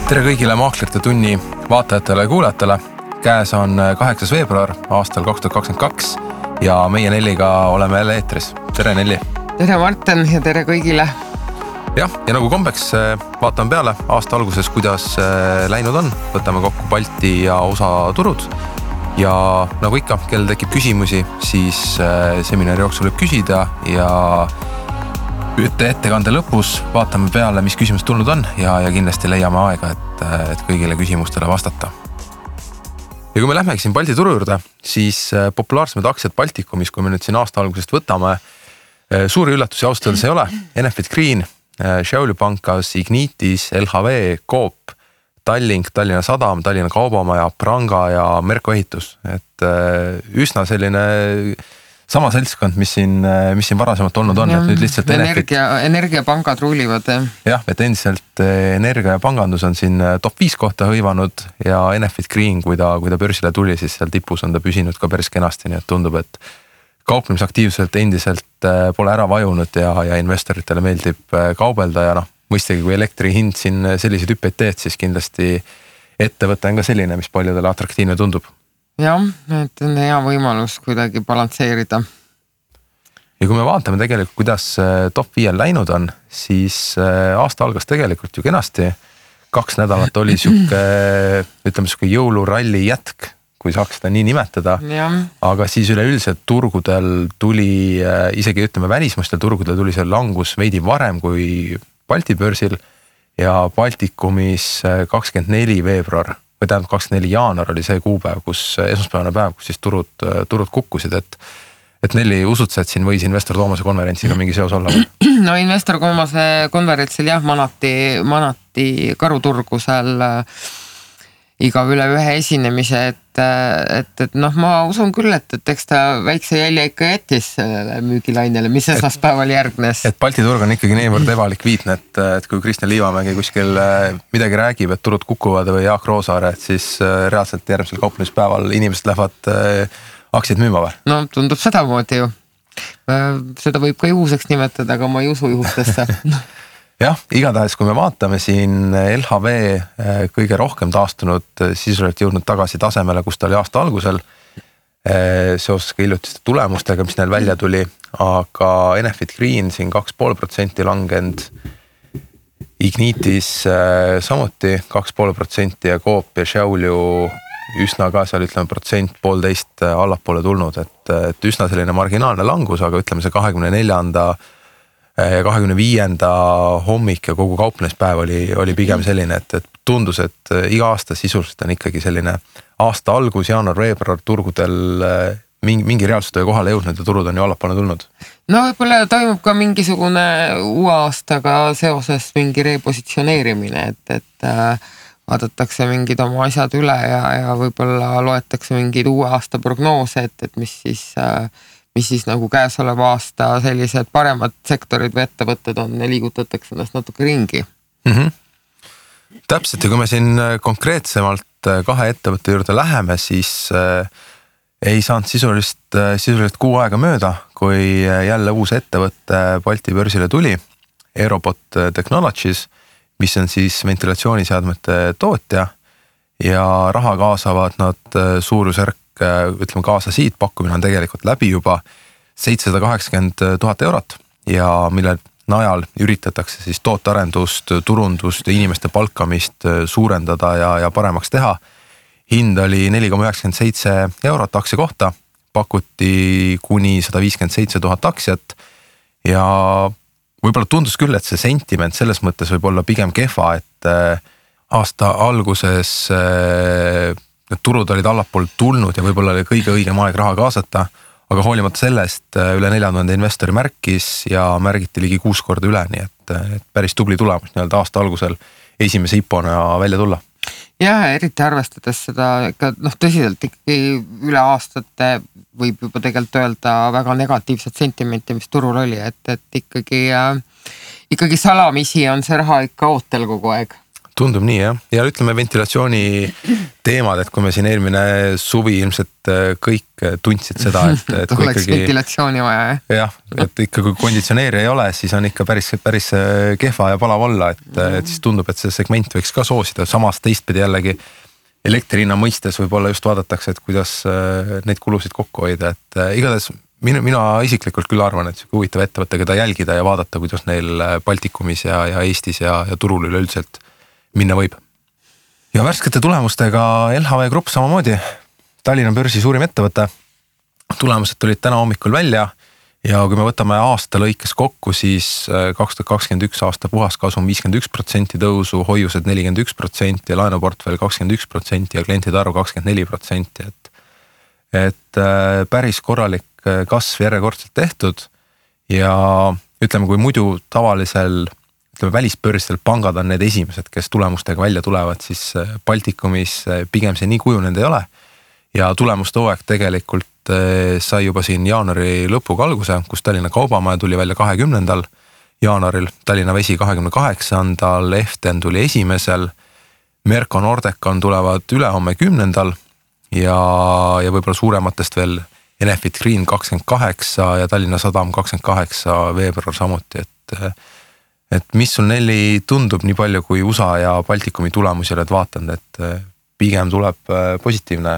Tere kõigile Maaklerite tunni vaatajatele ja kuulajatele. Käes on 8. veebruar aastal 2022 ja meie Nelliga oleme jälle eetris. Tere Nelli! Tere Martin ja tere kõigile! Ja nagu kombeks vaatame peale aasta alguses, kuidas läinud on. Võtame kokku Balti ja USA turud. Ja nagu ikka, kellel tekib küsimusi, siis seminari jooksul võib küsida ja ettekande lõpus vaatame peale, mis küsimus tulnud on ja kindlasti leiame aega, et kõigile küsimustele vastata. Ja kui me lähmegi siin Balti turu juurde, siis populaarsemad aktsiad Baltikumis, kui me nüüd siin aasta algusest võtame, suuri üllatusi austada ei ole. Enefit Green, Šiaulių Pankas, Ignitis, LHV, Coop, Tallink, Tallinna Sadam, Tallinna Kaubamaja, Pranga ja Merko Ehitus. Et üsna selline sama seltskond, mis siin varasemalt olnud on, et nüüd lihtsalt energiapangad ruulivad. Jah, et endiselt energia ja pangandus on siin top 5 kohta hõivanud ja Enefit Green, kui ta börsile tuli, siis seal tipus on ta püsinud ka päris kenasti, nii et tundub, et kauplemisaktiivselt endiselt pole ära vajunud ja investoritele meeldib kaubelda ja mõistagi, kui elektri hind siin selliseid hüppeid teed, siis kindlasti ettevõte on ka selline, mis paljudele atraktiivne tundub. Jah, et on hea võimalus kuidagi balansseerida. Ja kui me vaatame tegelikult, kuidas top 5 läinud on, siis aasta algas tegelikult ju kenasti. 2 nädalat oli ütleme jõuluralli jätk, kui saaks seda nii nimetada. Ja. Aga siis üleüldiselt turgudel tuli, isegi ütleme välismaistel turgudel tuli see langus veidi varem kui Balti börsil ja Baltikumis 24. veebruar. Või tähendab 24. jaanuar oli see kuupäev, esmaspäevane päev, kus siis turud kukkusid, et Nelli usud sa, et siin võis Investor Toomase konverentsiga mingi seos olla? No Investor Toomase konverentsil jah, manati karuturgu seal iga üle ühe esinemise, et ma usun küll, et eks ta väikse jälje ikka jättis müügilainele, mis esmaspäeval järgnes. Et Balti turg on ikkagi niivõrd ebalikviidne, et kui Kristjan Liivamägi kuskil midagi räägib, et turud kukuvad või Jaak Roosaare, et siis reaalselt järgmisel kauplemispäeval inimesed lähevad aktsiaid müüma või? No tundub sedamoodi ju. Seda võib ka juhuseks nimetada, aga ma ei usu juhustesse. Jah, igatahes kui me vaatame siin LHV kõige rohkem taastunud, sisuliselt jõudnud tagasi tasemele, kus ta oli aasta algusel seoses ka hiljutiste tulemustega, mis neil välja tuli, aga Enefit Green siin 2,5% langenud, Ignitis samuti 2,5% ja Coop ja Šiaulių üsna ka seal ütleme 1,5% allapoole tulnud, et üsna selline marginaalne langus, aga ütleme see 24. ja 25. hommik ja kogu kauplemispäev oli pigem selline, et tundus, et iga aasta sisuliselt on ikkagi selline aasta algus, jaanuar-veebruar turgudel mingi reaalsustöö kohale jõudnud ja turud on ju allapoole tulnud. No võib-olla toimub ka mingisugune uue aastaga seoses mingi repositsioneerimine, et vaadatakse mingid oma asjad üle ja võib-olla loetakse mingid uue aasta prognoose, et mis siis nagu käesoleva aasta sellised paremad sektorid või ettevõtted on ja liigutatakse ennast natuke ringi. Täpselt, ja kui me siin konkreetsemalt 2 ettevõtte juurde läheme, siis ei saanud sisuliselt 6 aega mööda, kui jälle uus ettevõtte Balti börsile tuli, Aerobot Technologies, mis on siis ventilatsiooniseadmete tootja ja raha kaasavad nad suurusjärk, ütleme kaasa siit, pakkumine on tegelikult läbi juba 780,000 eurot ja mille najal üritatakse siis tootearendust, turundust ja inimeste palkamist suurendada ja paremaks teha. Hind oli 4,97 eurot aktsia kohta, pakuti kuni 157,000 aktsiat ja võib-olla tundus küll, et see sentiment selles mõttes võib olla pigem kehva, et aasta alguses need turud olid allapool tulnud ja võib-olla oli kõige õigem aeg raha kaasata, aga hoolimata sellest üle 4000 investori märkis ja märgiti ligi 6 korda üle, nii et päris tubli tulemus nii-öelda aasta algusel esimese IPO-na välja tulla. Ja eriti arvestades seda tõsiselt ikkagi üle aastate võib juba tegelikult öelda väga negatiivset sentimenti, mis turul oli, et ikkagi salamisi on see raha ikka ootel kogu aeg. Tundub nii jah, ja ütleme ventilatsiooni teemad, et kui me siin eelmine suvi ilmselt kõik tundsid seda, et kui oleks ikkagi ventilatsiooni vaja, jah, et ikka kui konditsioneeri ei ole, siis on ikka päris kehva ja palav olla, et siis tundub, et see segment võiks ka soosida, samas teistpidi jällegi elektri hinna mõistes võib-olla just vaadatakse, et kuidas neid kulusid kokku hoida, et igatahes mina isiklikult küll arvan, et huvitav ettevõte, keda jälgida ja vaadata, kuidas neil Baltikumis ja Eestis ja turul üleüldiselt minna võib. Ja värskete tulemustega LHV Grupp samamoodi, Tallinna börsi suurim ettevõte. Tulemused tulid täna hommikul välja ja kui me võtame aasta lõikes kokku, siis 2021 aasta puhaskasum 51% tõusu, hoiused 41% ja laenuportfell 21% ja klientide arv 24%. Et päris korralik kasv järjekordselt tehtud ja ütleme, kui muidu tavalisel välisbörsidel pangad on need esimesed, kes tulemustega välja tulevad, siis Baltikumis pigem see nii kujunenud ei ole. Ja tulemuste hooaeg tegelikult sai juba siin jaanuari lõpuga alguse, kus Tallinna Kaubamaja tuli välja 20. jaanuaril, Tallinna Vesi 28. Eften tuli 1. Merko Nordecon tulevad ülehomme 10. ja võib-olla suurematest veel Enefit Green 28 ja Tallinna Sadam 28 veebruar samuti, et mis sul Nelli tundub nii palju, kui USA ja Baltikumi tulemusi oled vaatanud, et pigem tuleb positiivne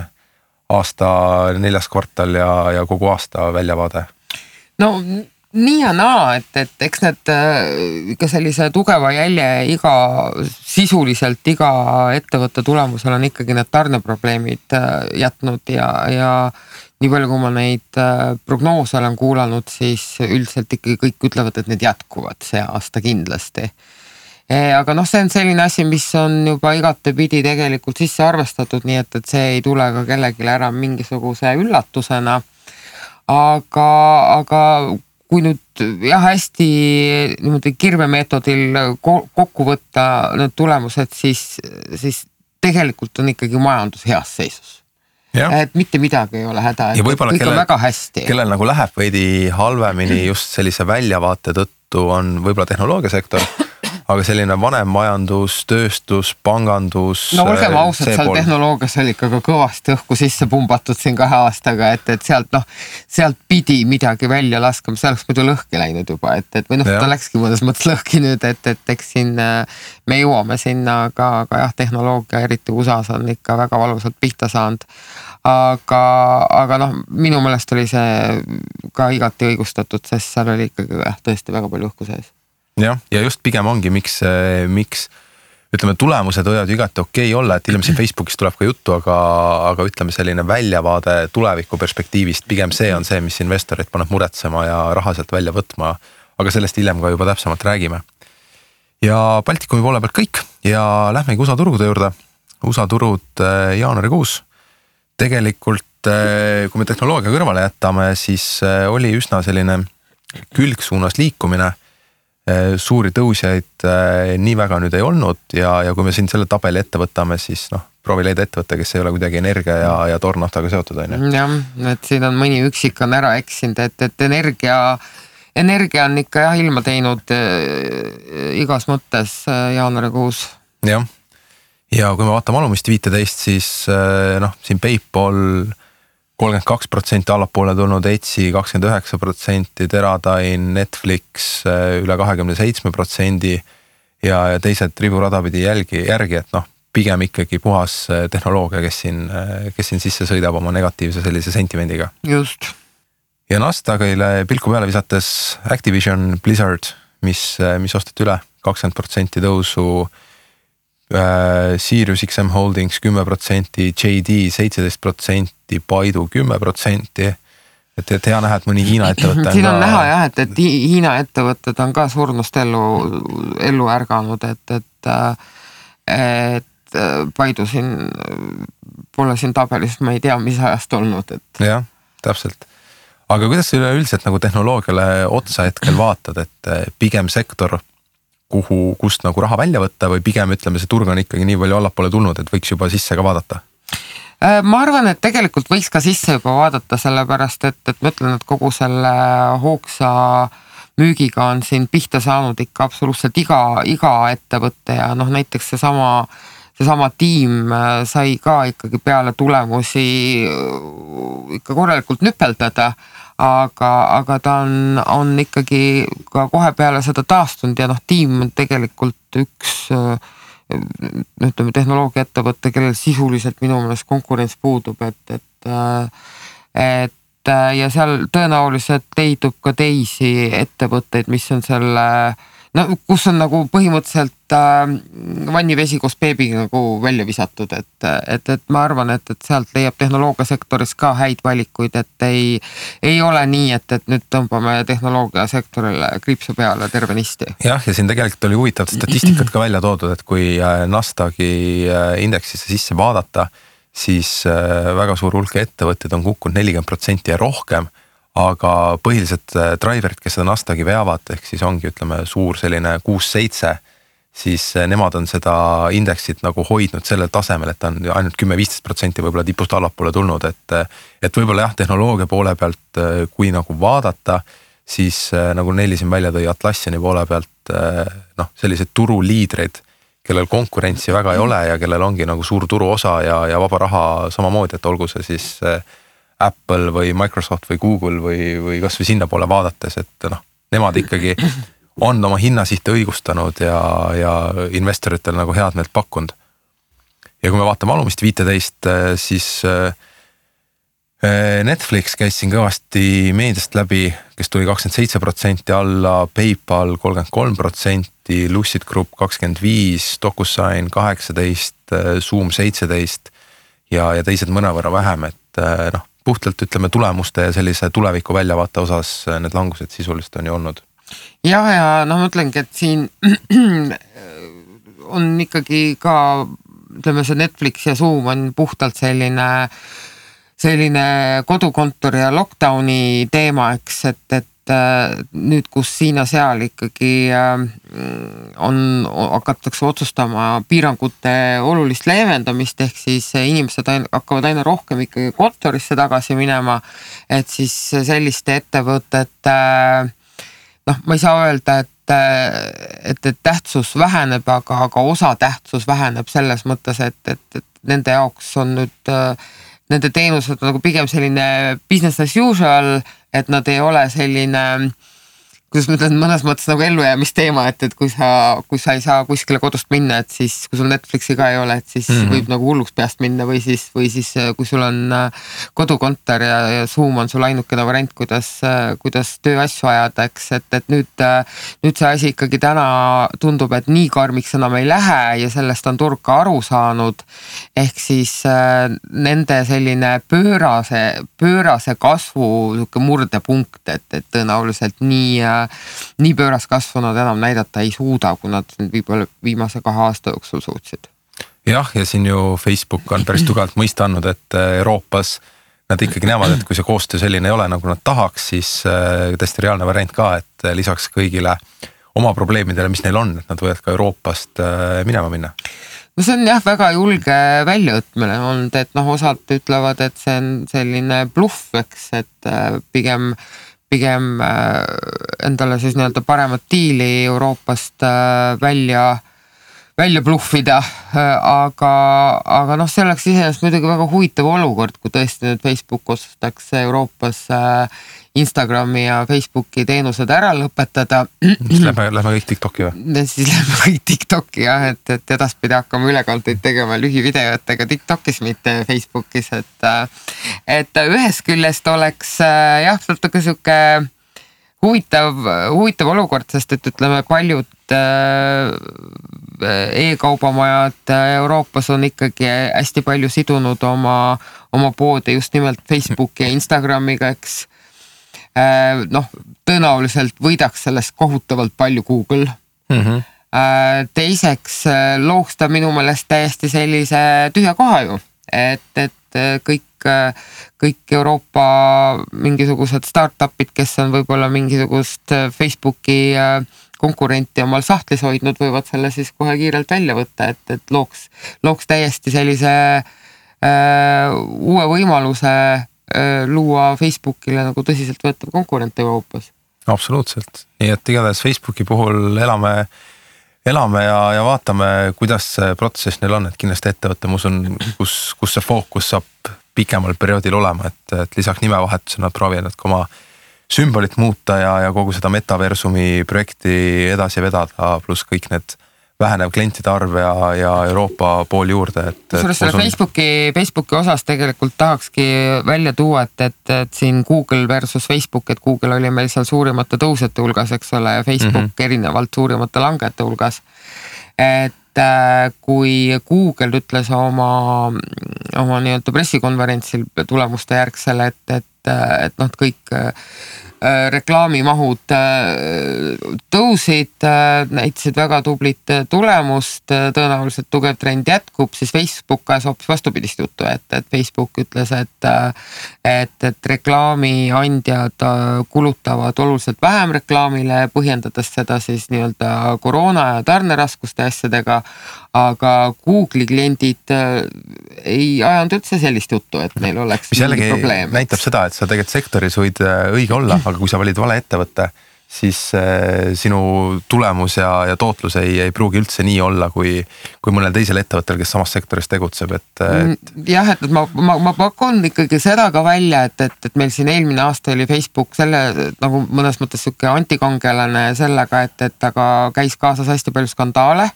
aasta 4. kvartal ja kogu aasta väljavaade? No nii ja naa, et eks need ikka sellise tugeva jälje sisuliselt iga ettevõtte tulemusel on ikkagi need tarneprobleemid jätnud ja nii palju, kui ma neid prognoose olen kuulanud, siis üldiselt ikkagi kõik ütlevad, et need jätkuvad see aasta kindlasti. Aga see on selline asi, mis on juba igatepidi tegelikult sisse arvestatud, nii et see ei tule ka kellelegi ära mingisuguse üllatusena. Aga kui nüüd hästi niimoodi kirvemeetodil kokku võtta need tulemused, siis tegelikult on ikkagi majandus heas seisus. Ja. Et mitte midagi ei ole häda, et kõik on väga hästi. Kellel nagu läheb veidi halvemini just sellise väljavaate tõttu on võib-olla tehnoloogiasektor, aga selline vanem majandus, tööstus, pangandus. No olgem ausad, seal tehnoloogias oli ikka kõvasti õhku sisse pumbatud siin 2 aastaga, et sealt pidi midagi välja laskama, see oleks muidu lõhki läinud juba, või ta läkski mõnes mõttes lõhki nüüd, et eks siin me jõuame sinna, aga tehnoloogia, eriti USAs on ikka väga valusalt pihta saanud. Aga minu meelest oli see ka igati õigustatud, sest seal oli ikkagi tõesti väga palju õhku sees. Ja just pigem ongi, miks ütleme, tulemused võivad igati okei olla, et ilmselt Facebookis tuleb ka juttu, aga ütleme selline väljavaade tuleviku perspektiivist, pigem see on see, mis investorid paneb muretsema ja raha sealt välja võtma, aga sellest hiljem ka juba täpsemalt räägime. Ja Baltikumi poole pealt kõik ja lähmegi USA turude juurde. USA turud jaanuarikuus. Tegelikult, kui me tehnoloogia kõrvale jätame, siis oli üsna selline külgsuunas liikumine. Suuri tõusjaid nii väga nüüd ei olnud ja kui me siin selle tabeli ette võtame, siis proovi leida ettevõtte, kes ei ole kuidagi energia ja toornaftaga seotud. Jah, et siin on mõni üksik on ära eksinud, et energia on ikka ilma teinud igas mõttes jaanuarikuus. Jah, ja kui me vaatame alumist 15, siis siin PayPal 32% allapoole tulnud, Etsy 29%, Teradyne, Netflix üle 27% ja teised riburadapidi järgi, et pigem ikkagi puhas tehnoloogia, kes siin sisse sõidab oma negatiivse sellise sentimendiga. Just. Ja Nasdaqile pilku peale visates Activision Blizzard, mis osteti üle 20% tõusu, Sirius XM Holdings 10%, JD 17%, Baidu 10%, et hea näha, et mõni Hiina ettevõte siin on näha jah, et Hiina ettevõtted on ka surnust ellu ärganud, et Baidu siin pole siin tabelis, ma ei tea, mis ajast olnud. Jah, täpselt. Aga kuidas üleüldiselt nagu tehnoloogiale otsa hetkel vaatad, et pigem sektor kust nagu raha välja võtta või pigem ütleme, see turg on ikkagi nii palju allapoole tulnud, et võiks juba sisse ka vaadata? Ma arvan, et tegelikult võiks ka sisse juba vaadata, sellepärast, et ma ütlen, et kogu selle hoogsa müügiga on siin pihta saanud ikka absoluutselt iga ettevõte ja noh, näiteks seesama tiim sai ka ikkagi peale tulemusi ikka korralikult nüpeldada, aga ta on ikkagi ka kohe peale seda taastunud ja noh, tiim on tegelikult üks ütleme tehnoloogiaettevõte, kellel sisuliselt minu meelest konkurents puudub, et ja seal tõenäoliselt leidub ka teisi ettevõtteid, mis on selle, no kus on nagu põhimõtteliselt vannivesi koos beebiga nagu välja visatud, et ma arvan, et sealt leiab tehnoloogiasektoris ka häid valikuid, et ei ole nii, et nüüd tõmbame tehnoloogiasektorile kriipsu peale tervenisti. Jah, ja siin tegelikult oli huvitavat statistikat ka välja toodud, et kui Nasdaqi indeksisse sisse vaadata, siis väga suur hulk ettevõtted on kukkunud 40% ja rohkem, aga põhilised driverid, kes seda Nasdaqi veavad, ehk siis ongi ütleme suur selline 6-7, siis nemad on seda indeksit nagu hoidnud sellel tasemel, et on ainult 10-15% võib-olla tipust allapoole tulnud, et võib-olla jah, tehnoloogia poole pealt, kui nagu vaadata, siis nagu Nelli siin välja tõi Atlassiani poole pealt, noh, sellised turuliidreid, kellel konkurentsi väga ei ole ja kellel ongi nagu suur turuosa ja vaba raha samamoodi, et olgu see siis Apple või Microsoft või Google või kas või sinna poole vaadates, et noh, nemad ikkagi on oma hinnasihte õigustanud ja investoritel nagu head meelt pakkunud. Ja kui me vaatame alumist 15, siis Netflix käis siin kõvasti meediast läbi, kes tuli 27% alla, PayPal 33%, Lucid Group 25%, DocuSign 18%, Zoom 17% ja teised mõnevõrra vähem, et noh, puhtalt ütleme tulemuste ja sellise tuleviku väljavaate osas need langused sisuliselt on ju olnud. Ja noh, ma ütlengi, et siin on ikkagi ka, ütleme see Netflix ja Zoom on puhtalt selline kodukontori ja lockdowni teema, eks, et nüüd, kus siin ja seal ikkagi hakatakse otsustama piirangute olulist leevendamist, ehk siis inimesed hakkavad aina rohkem ikkagi kontorisse tagasi minema, et siis selliste ettevõtete, noh, ma ei saa öelda, et tähtsus väheneb, aga osa tähtsus väheneb selles mõttes, et nende jaoks on nüüd nende teenused nagu pigem selline business as usual, et nad ei ole selline, kuidas ma ütlen, mõnes mõttes nagu ellujäämisteema, et kui sa ei saa kuskile kodust minna, et siis kui sul Netflixi ka ei ole, et siis võib nagu hulluks peast minna või siis kui sul on kodukontor ja Zoom on sul ainukene variant, kuidas tööasju ajada, eks, et nüüd see asi ikkagi täna tundub, et nii karmiks enam ei lähe ja sellest on turg ka aru saanud, ehk siis nende selline pöörase kasvu murdepunkt, et tõenäoliselt nii pööras kasvu nad enam näidata ei suuda, kui nad võib-olla viimase 2 aasta jooksul suutsid. Jah, ja siin ju Facebook on päris tugevalt mõista andnud, et Euroopas nad ikkagi näevad, et kui see koostöö selline ei ole, nagu nad tahaks, siis täiesti reaalne variant ka, et lisaks kõigile oma probleemidele, mis neil on, et nad võivad ka Euroopast minema minna. No see on jah väga julge väljaõtmine olnud, et noh, osad ütlevad, et see on selline bluff, eks, et pigem endale siis nii-öelda paremat diili Euroopast välja bluffida, aga noh, see oleks iseenesest muidugi väga huvitav olukord, kui tõesti nüüd Facebook otsustaks Euroopas Instagrami ja Facebooki teenused ära lõpetada. Siis lähme kõik TikToki või? Siis lähme kõik TikToki jah, et edaspidi hakkame ülekanteid tegema lühivideotega TikTokis, mitte Facebookis, et ühest küljest oleks jah, natuke sihuke huvitav olukord, sest et ütleme paljud e-kaubamajad Euroopas on ikkagi hästi palju sidunud oma poode just nimelt Facebooki ja Instagramiga, eks. Noh, tõenäoliselt võidaks sellest kohutavalt palju Google. Teiseks looks ta minu meelest täiesti sellise tühja koha ju, et kõik Euroopa mingisugused startupid, kes on võib-olla mingisugust Facebooki konkurenti omal sahtlis hoidnud, võivad selle siis kohe kiirelt välja võtta, et looks täiesti sellise uue võimaluse luua Facebookile nagu tõsiselt võetav konkurent Euroopas. Absoluutselt, nii et igatahes Facebooki puhul elame ja vaatame, kuidas see protsess neil on, et kindlasti ettevõte, ma usun, kus see fookus saab pikemal perioodil olema, et lisaks nimevahetusena nad proovivad ka oma sümbolit muuta ja kogu seda metaversumi projekti edasi vedada, pluss kõik need vähenev klientide arv ja Euroopa pool juurde. Selle Facebooki osas tegelikult tahakski välja tuua, et siin Google versus Facebook, et Google oli meil seal suurimate tõusjate hulgas, eks ole, ja Facebook erinevalt suurimate langete hulgas. Et kui Google ütles oma nii-öelda pressikonverentsil tulemuste järgsel, et noh, kõik reklaamimahud tõusid, näitasid väga tublit tulemust, tõenäoliselt tugev trend jätkub, siis Facebook ajas hoopis vastupidist juttu, et Facebook ütles, et reklaamiandjad kulutavad oluliselt vähem reklaamile, põhjendades seda siis nii-öelda koroona ja tarneraskuste asjadega, aga Google'i kliendid ei ajanud üldse sellist juttu, et neil oleks mingi probleem. Mis näitab seda, et sa tegelikult sektoris võid õige olla, aga kui sa valid vale ettevõtte, siis sinu tulemus ja tootlus ei pruugi üldse nii olla, kui mõnel teisel ettevõttel, kes samas sektoris tegutseb. Jah, et ma pakun ikkagi seda ka välja, et meil siin eelmine aasta oli Facebook selle nagu mõnes mõttes siuke antikangelane sellega, et aga käis kaasas hästi palju skandaale,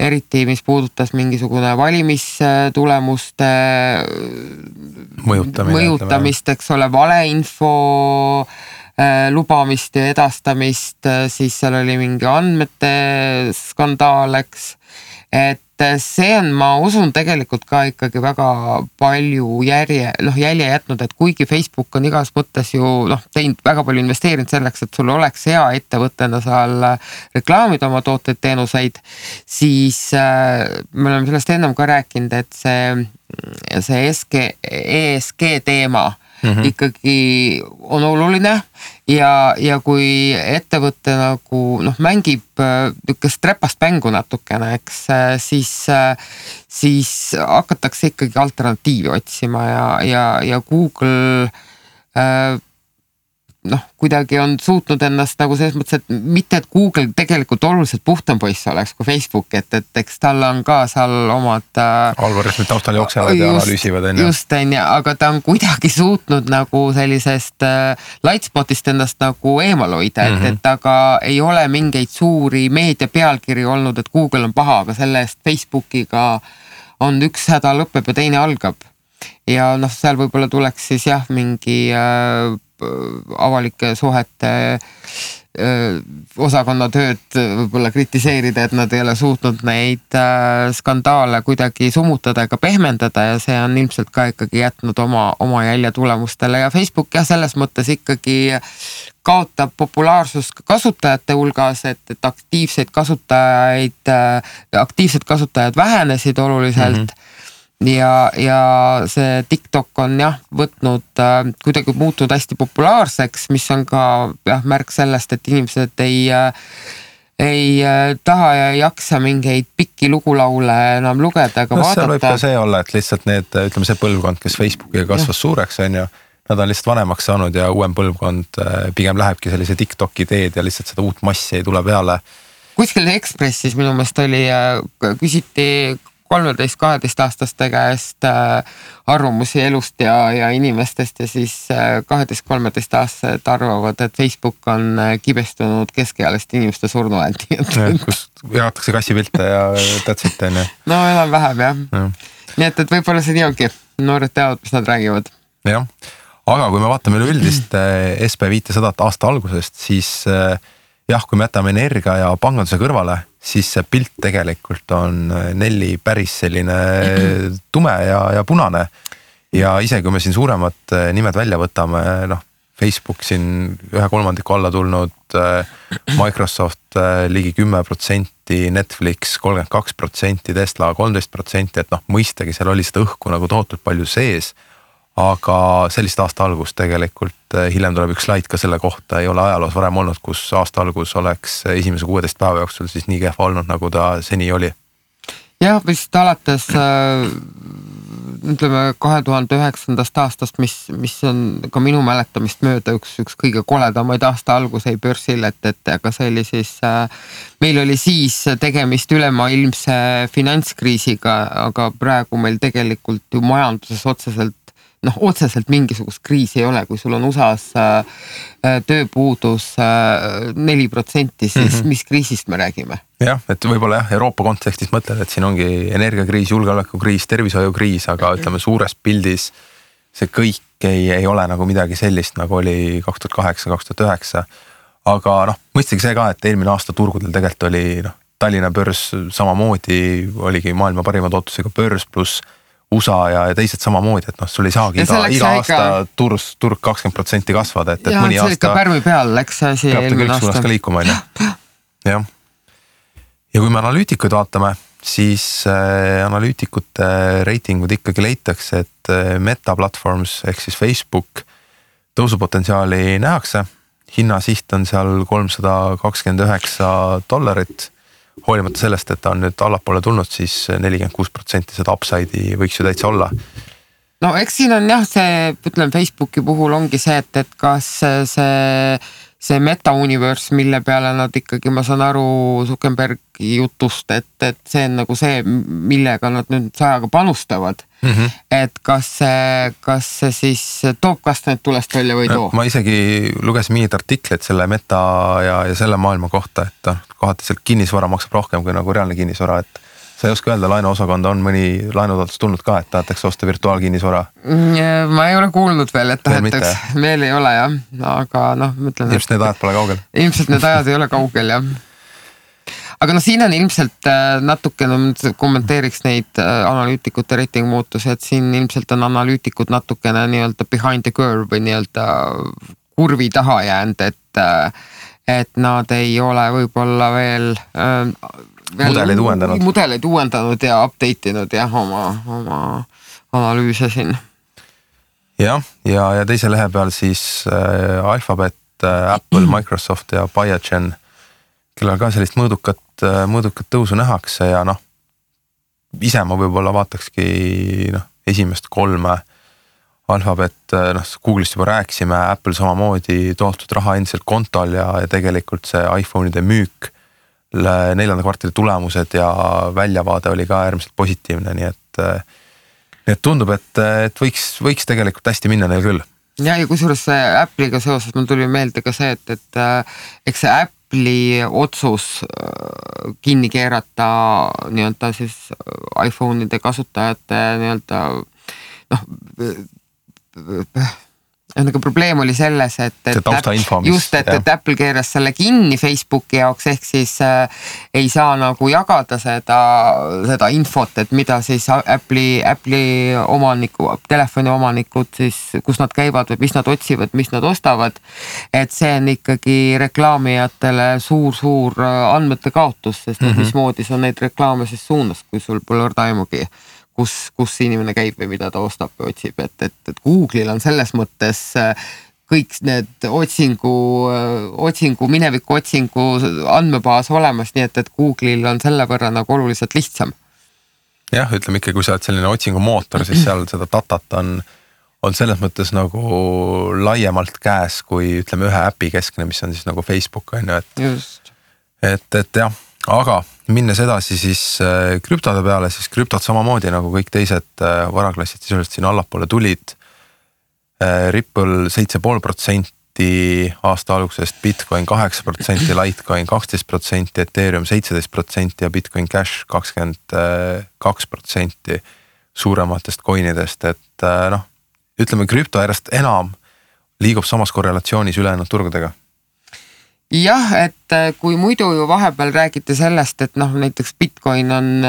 eriti mis puudutas mingisugune valimistulemuste mõjutamist, eks ole, valeinfo lubamist ja edastamist, siis seal oli mingi andmete skandaal, eks. Et see on, ma usun, tegelikult ka ikkagi väga palju jälje jätnud, et kuigi Facebook on igas mõttes ju teinud väga palju investeerinud selleks, et sul oleks hea ettevõttena seal reklaamida oma tooteid, teenuseid, siis me oleme sellest ennem ka rääkinud, et see ESG teema ikkagi on oluline ja kui ettevõte nagu mängib niisugust trepast mängu natukene, eks, siis hakatakse ikkagi alternatiivi otsima ja Google kuidagi on suutnud ennast nagu selles mõttes, et mitte, et Google tegelikult oluliselt puhtam poiss oleks kui Facebook, et eks tal on ka seal omad algoritmid taustal jooksevad ja analüüsivad. Just, aga ta on kuidagi suutnud nagu sellisest lightspotist ennast nagu eemal hoida, et aga ei ole mingeid suuri meedia pealkiri olnud, et Google on paha, aga selle eest Facebookiga on üks häda lõpeb ja teine algab. Ja seal võib-olla tuleks siis mingi avalike suhete osakonna tööd võib-olla kritiseerida, et nad ei ole suutnud neid skandaale kuidagi summutada ega pehmendada ja see on ilmselt ka ikkagi jätnud oma jälje tulemustele ja Facebook selles mõttes ikkagi kaotab populaarsust kasutajate hulgas, et aktiivsed kasutajad vähenesid oluliselt. Ja see TikTok on võtnud kuidagi muutunud hästi populaarseks, mis on ka märk sellest, et inimesed ei taha ja ei jaksa mingeid pikki lugulaule enam lugeda ega vaadata. See võib ka see olla, et lihtsalt ütleme see põlvkond, kes Facebookiga kasvas suureks, on ju, nad on lihtsalt vanemaks saanud ja uuem põlvkond pigem lähebki sellise TikToki teed ja lihtsalt seda uut massi ei tule peale. Kuskil Ekspressis minu meelest oli, küsiti 13-12 aastaste käest arvamusi elust ja inimestest ja siis 12-13 aastased arvavad, et Facebook on kibestunud keskealiste inimeste surnuändi. Kus jagatakse kassipilte ja tätsit, on ju. No enam vähem, jah. Nii et võib-olla see nii ongi. Noored teavad, mis nad räägivad. Jah, aga kui me vaatame üleüldist SP500 aasta algusest, siis kui me jätame energia ja panganduse kõrvale, siis see pilt tegelikult on Nelli päris selline tume ja punane. Ja isegi kui me siin suuremad nimed välja võtame, Facebook siin 1/3 alla tulnud, Microsoft ligi 10%, Netflix 32%, Tesla 13%, et mõistagi seal oli seda õhku nagu tohutult palju sees. Aga sellist aasta algus tegelikult, hiljem tuleb üks slaid ka selle kohta, ei ole ajaloos varem olnud, kus aasta algus oleks esimese 16 päeva jooksul siis nii kehva olnud, nagu ta seni oli. Jah, vist alates ütleme 2009. aastast, mis on ka minu mäletamist mööda üks kõige koledamaid aasta alguseid börsil, et aga see oli siis, meil oli siis tegemist ülemaailmse finantskriisiga, aga praegu meil tegelikult ju majanduses otseselt mingisugust kriisi ei ole, kui sul on USA-s tööpuudus 4%, siis mis kriisist me räägime? Jah, et võib-olla Euroopa kontekstis mõtled, et siin ongi energiakriis, julgeolekukriis, tervishoiukriis, aga ütleme suures pildis see kõik ei ole nagu midagi sellist, nagu oli 2008-2009. Aga mõistagi see ka, et eelmine aasta turgudel tegelikult oli Tallinna börs samamoodi, oligi maailma parima tootlusega börs pluss USA ja teised samamoodi, et sul ei saagi iga aasta turg 20% kasvada, et mõni aasta... Ja see ikka pärmi peal läks see asi eelmine aasta. Ka liikuma, jah. Ja kui me analüütikuid vaatame, siis analüütikute reitingud ikkagi leitakse, et Meta Platforms ehk siis Facebook tõusupotentsiaali nähakse. Hinnasiht on seal $329, hoolimata sellest, et ta on nüüd allapoole tulnud, siis 46% seda upside'i võiks ju täitsa olla. No eks siin on jah, ütleme Facebooki puhul ongi see, et kas see meta-universe, mille peale nad ikkagi, ma saan aru Zuckerbergi jutust, et see on nagu see, millega nad nüüd sajaga panustavad. Et kas see siis toob kastmed tulest välja või too? Ma isegi lugesin mingid artikleid selle meta ja selle maailma kohta, et kohati sealt kinnisvara maksab rohkem kui nagu reaalne kinnisvara, et sa ei oska öelda, laenuosakonda on mõni laenutaotlus tulnud ka, et tahetakse osta virtuaalkinnisvara? Ma ei ole kuulnud veel, et tahetaks, veel ei ole jah, aga mõtlen... Ilmselt need ajad pole kaugel. Ilmselt need ajad ei ole kaugel jah. Aga siin on ilmselt natukene, kommenteeriks neid analüütikute reitingu muutusi, et siin ilmselt on analüütikud natukene nii-öelda behind the curve või nii-öelda kurvi taha jäänud, et nad ei ole võib-olla veel mudeleid uuendanud ja update inud jah, oma analüüse siin. Jah, ja teise lehe peal siis Alphabet, Apple, Microsoft ja Biogen, kellel ka sellist mõõdukat tõusu nähakse ja ise ma võib-olla vaatakski esimest 3 Alphabet, Google'ist juba rääkisime, Apple samamoodi toostud raha endiselt kontol ja tegelikult see iPhone'ide müük 4. kvartali tulemused ja väljavaade oli ka äärmiselt positiivne, nii et tundub, et võiks tegelikult hästi minna neil küll. Ja kusjuures Apple'iga seoses mul tuli meelde ka see, et eks see Apple'i otsus kinni keerata nii-öelda siis iPhone'ide kasutajate nii-öelda nagu probleem oli selles, et Apple keeras selle kinni Facebooki jaoks, ehk siis ei saa nagu jagada seda infot, et mida siis Apple'i omaniku, telefoni omanikud siis, kus nad käivad või mis nad otsivad, mis nad ostavad, et see on ikkagi reklaamijatele suur andmete kaotus, sest mismoodi sa neid reklaame siis suunas, kui sul pole orda-aimugi kus inimene käib või mida ta ostab või otsib, et Google'il on selles mõttes kõik need mineviku otsingu andmebaas olemas, nii et Google'il on selle võrra nagu oluliselt lihtsam. Jah, ütleme ikka, kui sa oled selline otsingumootor, siis seal seda datat on selles mõttes nagu laiemalt käes, kui ütleme ühe äpi keskne, mis on siis nagu Facebook, et jah, aga minnes edasi siis krüptode peale, siis krüptod samamoodi nagu kõik teised varaklassid sisuliselt siin allapoole tulid. Ripple 7,5% aasta algusest, Bitcoin 8%, Litecoin 12%, Ethereum 17% ja Bitcoin Cash 22% suurematest coinidest, et ütleme krüpto järjest enam liigub samas korrelatsioonis ülejäänud turgudega. Jah, et kui muidu ju vahepeal räägite sellest, et näiteks Bitcoin on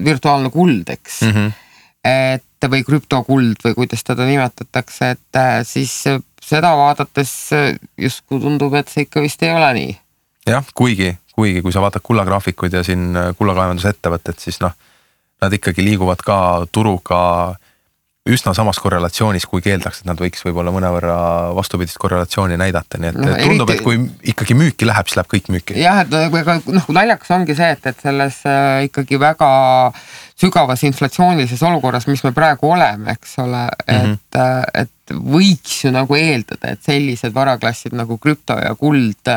virtuaalne kuld, eks, et või krüptokuld või kuidas teda nimetatakse, et siis seda vaadates justkui tundub, et see ikka vist ei ole nii. Jah, kuigi kui sa vaatad kullagraafikuid ja siin kullakaevandusettevõtted, siis nad ikkagi liiguvad ka turuga üsna samas korrelatsioonis, kui keeldaks, et nad võiks võib-olla mõnevõrra vastupidist korrelatsiooni näidata, nii et tundub, et kui ikkagi müüki läheb, siis läheb kõik müüki. Jah, et naljakas ongi see, et selles ikkagi väga sügavas inflatsioonilises olukorras, mis me praegu oleme, eks ole, et võiks ju nagu eeldada, et sellised varaklassid nagu krüpto ja kuld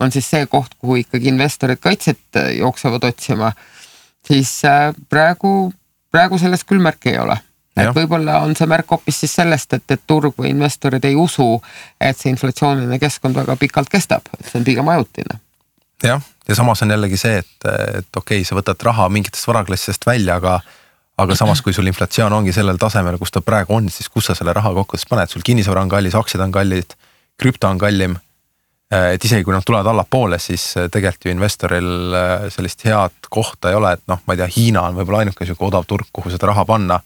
on siis see koht, kuhu ikkagi investorid kaitset jooksevad otsima, siis praegu sellest küll märki ei ole. Et võib-olla on see märk hoopis siis sellest, et turg või investorid ei usu, et see inflatsiooniline keskkond väga pikalt kestab, et see on pigem ajutine. Jah, ja samas on jällegi see, et okei, sa võtad raha mingitest varaklassidest välja, aga samas kui sul inflatsioon ongi sellel tasemel, kus ta praegu on, siis kus sa selle raha kokkudest paned, sul kinnisvara on kallis, aktsiad on kallid, krüpto on kallim, et isegi kui nad tulevad allapoole, siis tegelikult ju investoril sellist head kohta ei ole, et noh, ma ei tea, Hiina on võib-olla ainuke selline odav turg, kuhu seda raha panna.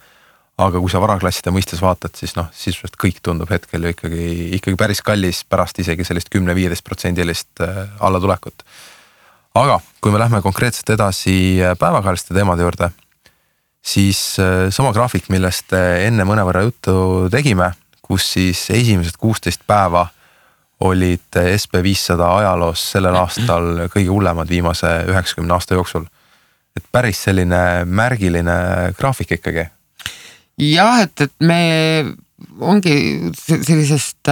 Aga kui sa varaklasside mõistes vaatad, siis sisuliselt kõik tundub hetkel ju ikkagi päris kallis pärast isegi sellist 10-15% allatulekut. Aga kui me lähme konkreetselt edasi päevakajaliste teemade juurde, siis sama graafik, millest enne mõnevõrra juttu tegime, kus siis esimesed 16 päeva olid SP500 ajaloos sellel aastal kõige hullemad viimase 90 aasta jooksul. Et päris selline märgiline graafik ikkagi. Jah, et me ongi sellisest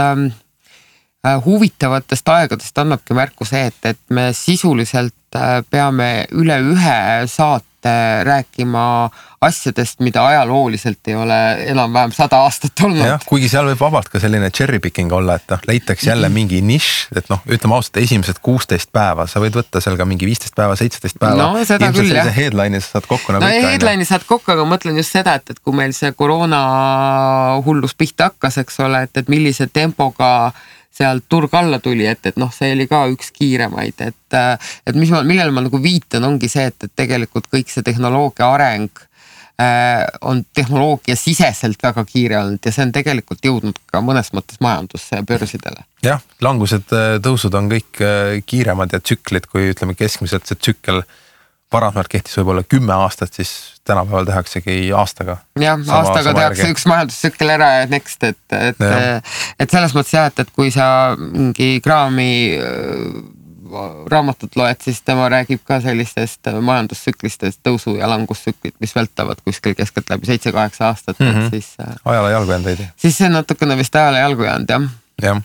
huvitavatest aegadest annabki märku see, et me sisuliselt peame üle ühe saate rääkima asjadest, mida ajalooliselt ei ole enam-vähem 100 aastat olnud. Jah, kuigi seal võib vabalt ka selline cherry picking olla, et leitaks jälle mingi nišš, et ütleme ausalt, esimesed 16 päeva, sa võid võtta seal ka mingi 15 päeva, 17 päeva. No seda küll, jah. Headline'i saad kokku nagu ikka. Headline'i saad kokku, aga mõtlen just seda, et kui meil see koroona hullus pihta hakkas, eks ole, et millise tempoga seal turg alla tuli, et see oli ka üks kiiremaid, et millele ma nagu viitan, ongi see, et tegelikult kõik see tehnoloogia areng on tehnoloogia siseselt väga kiire olnud ja see on tegelikult jõudnud ka mõnes mõttes majandusse ja börsidele. Jah, langused, tõusud on kõik kiiremad ja tsüklid, kui ütleme keskmiselt see tsükkel varasemalt kehtis võib-olla 10 aastat, siis tänapäeval tehaksegi aastaga. Jah, aastaga tehakse üks majandustsükkel ära ja next, et selles mõttes jah, et kui sa mingi kraami raamatut loed, siis tema räägib ka sellistest majandustsüklistest tõusu- ja langustsüklit, mis vältavad kuskil keskelt läbi 7-8 aastat. Siis, ajale jalgu jäänud veidi. Siis see on natukene vist ajale jalgu jäänud, jah. Jah,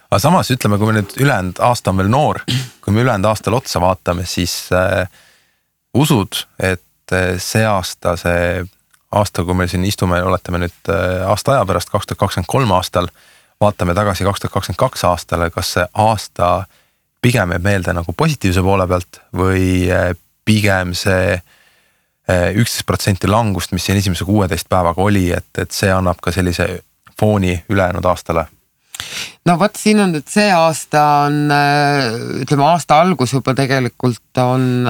aga samas ütleme, kui me nüüd ülejäänud aasta on veel noor, kui me ülejäänud aastal otsa vaatame, siis usud, et see aasta, kui me siin istume, oletame nüüd aasta aja pärast 2023 aastal, vaatame tagasi 2022 aastale, kas see aasta pigem jääb meelde nagu positiivse poole pealt või pigem see 11% langust, mis siin esimese 16 päevaga oli, et see annab ka sellise fooni ülejäänud aastale? No võt, siin on, et see aasta on, ütleme aasta algus juba tegelikult on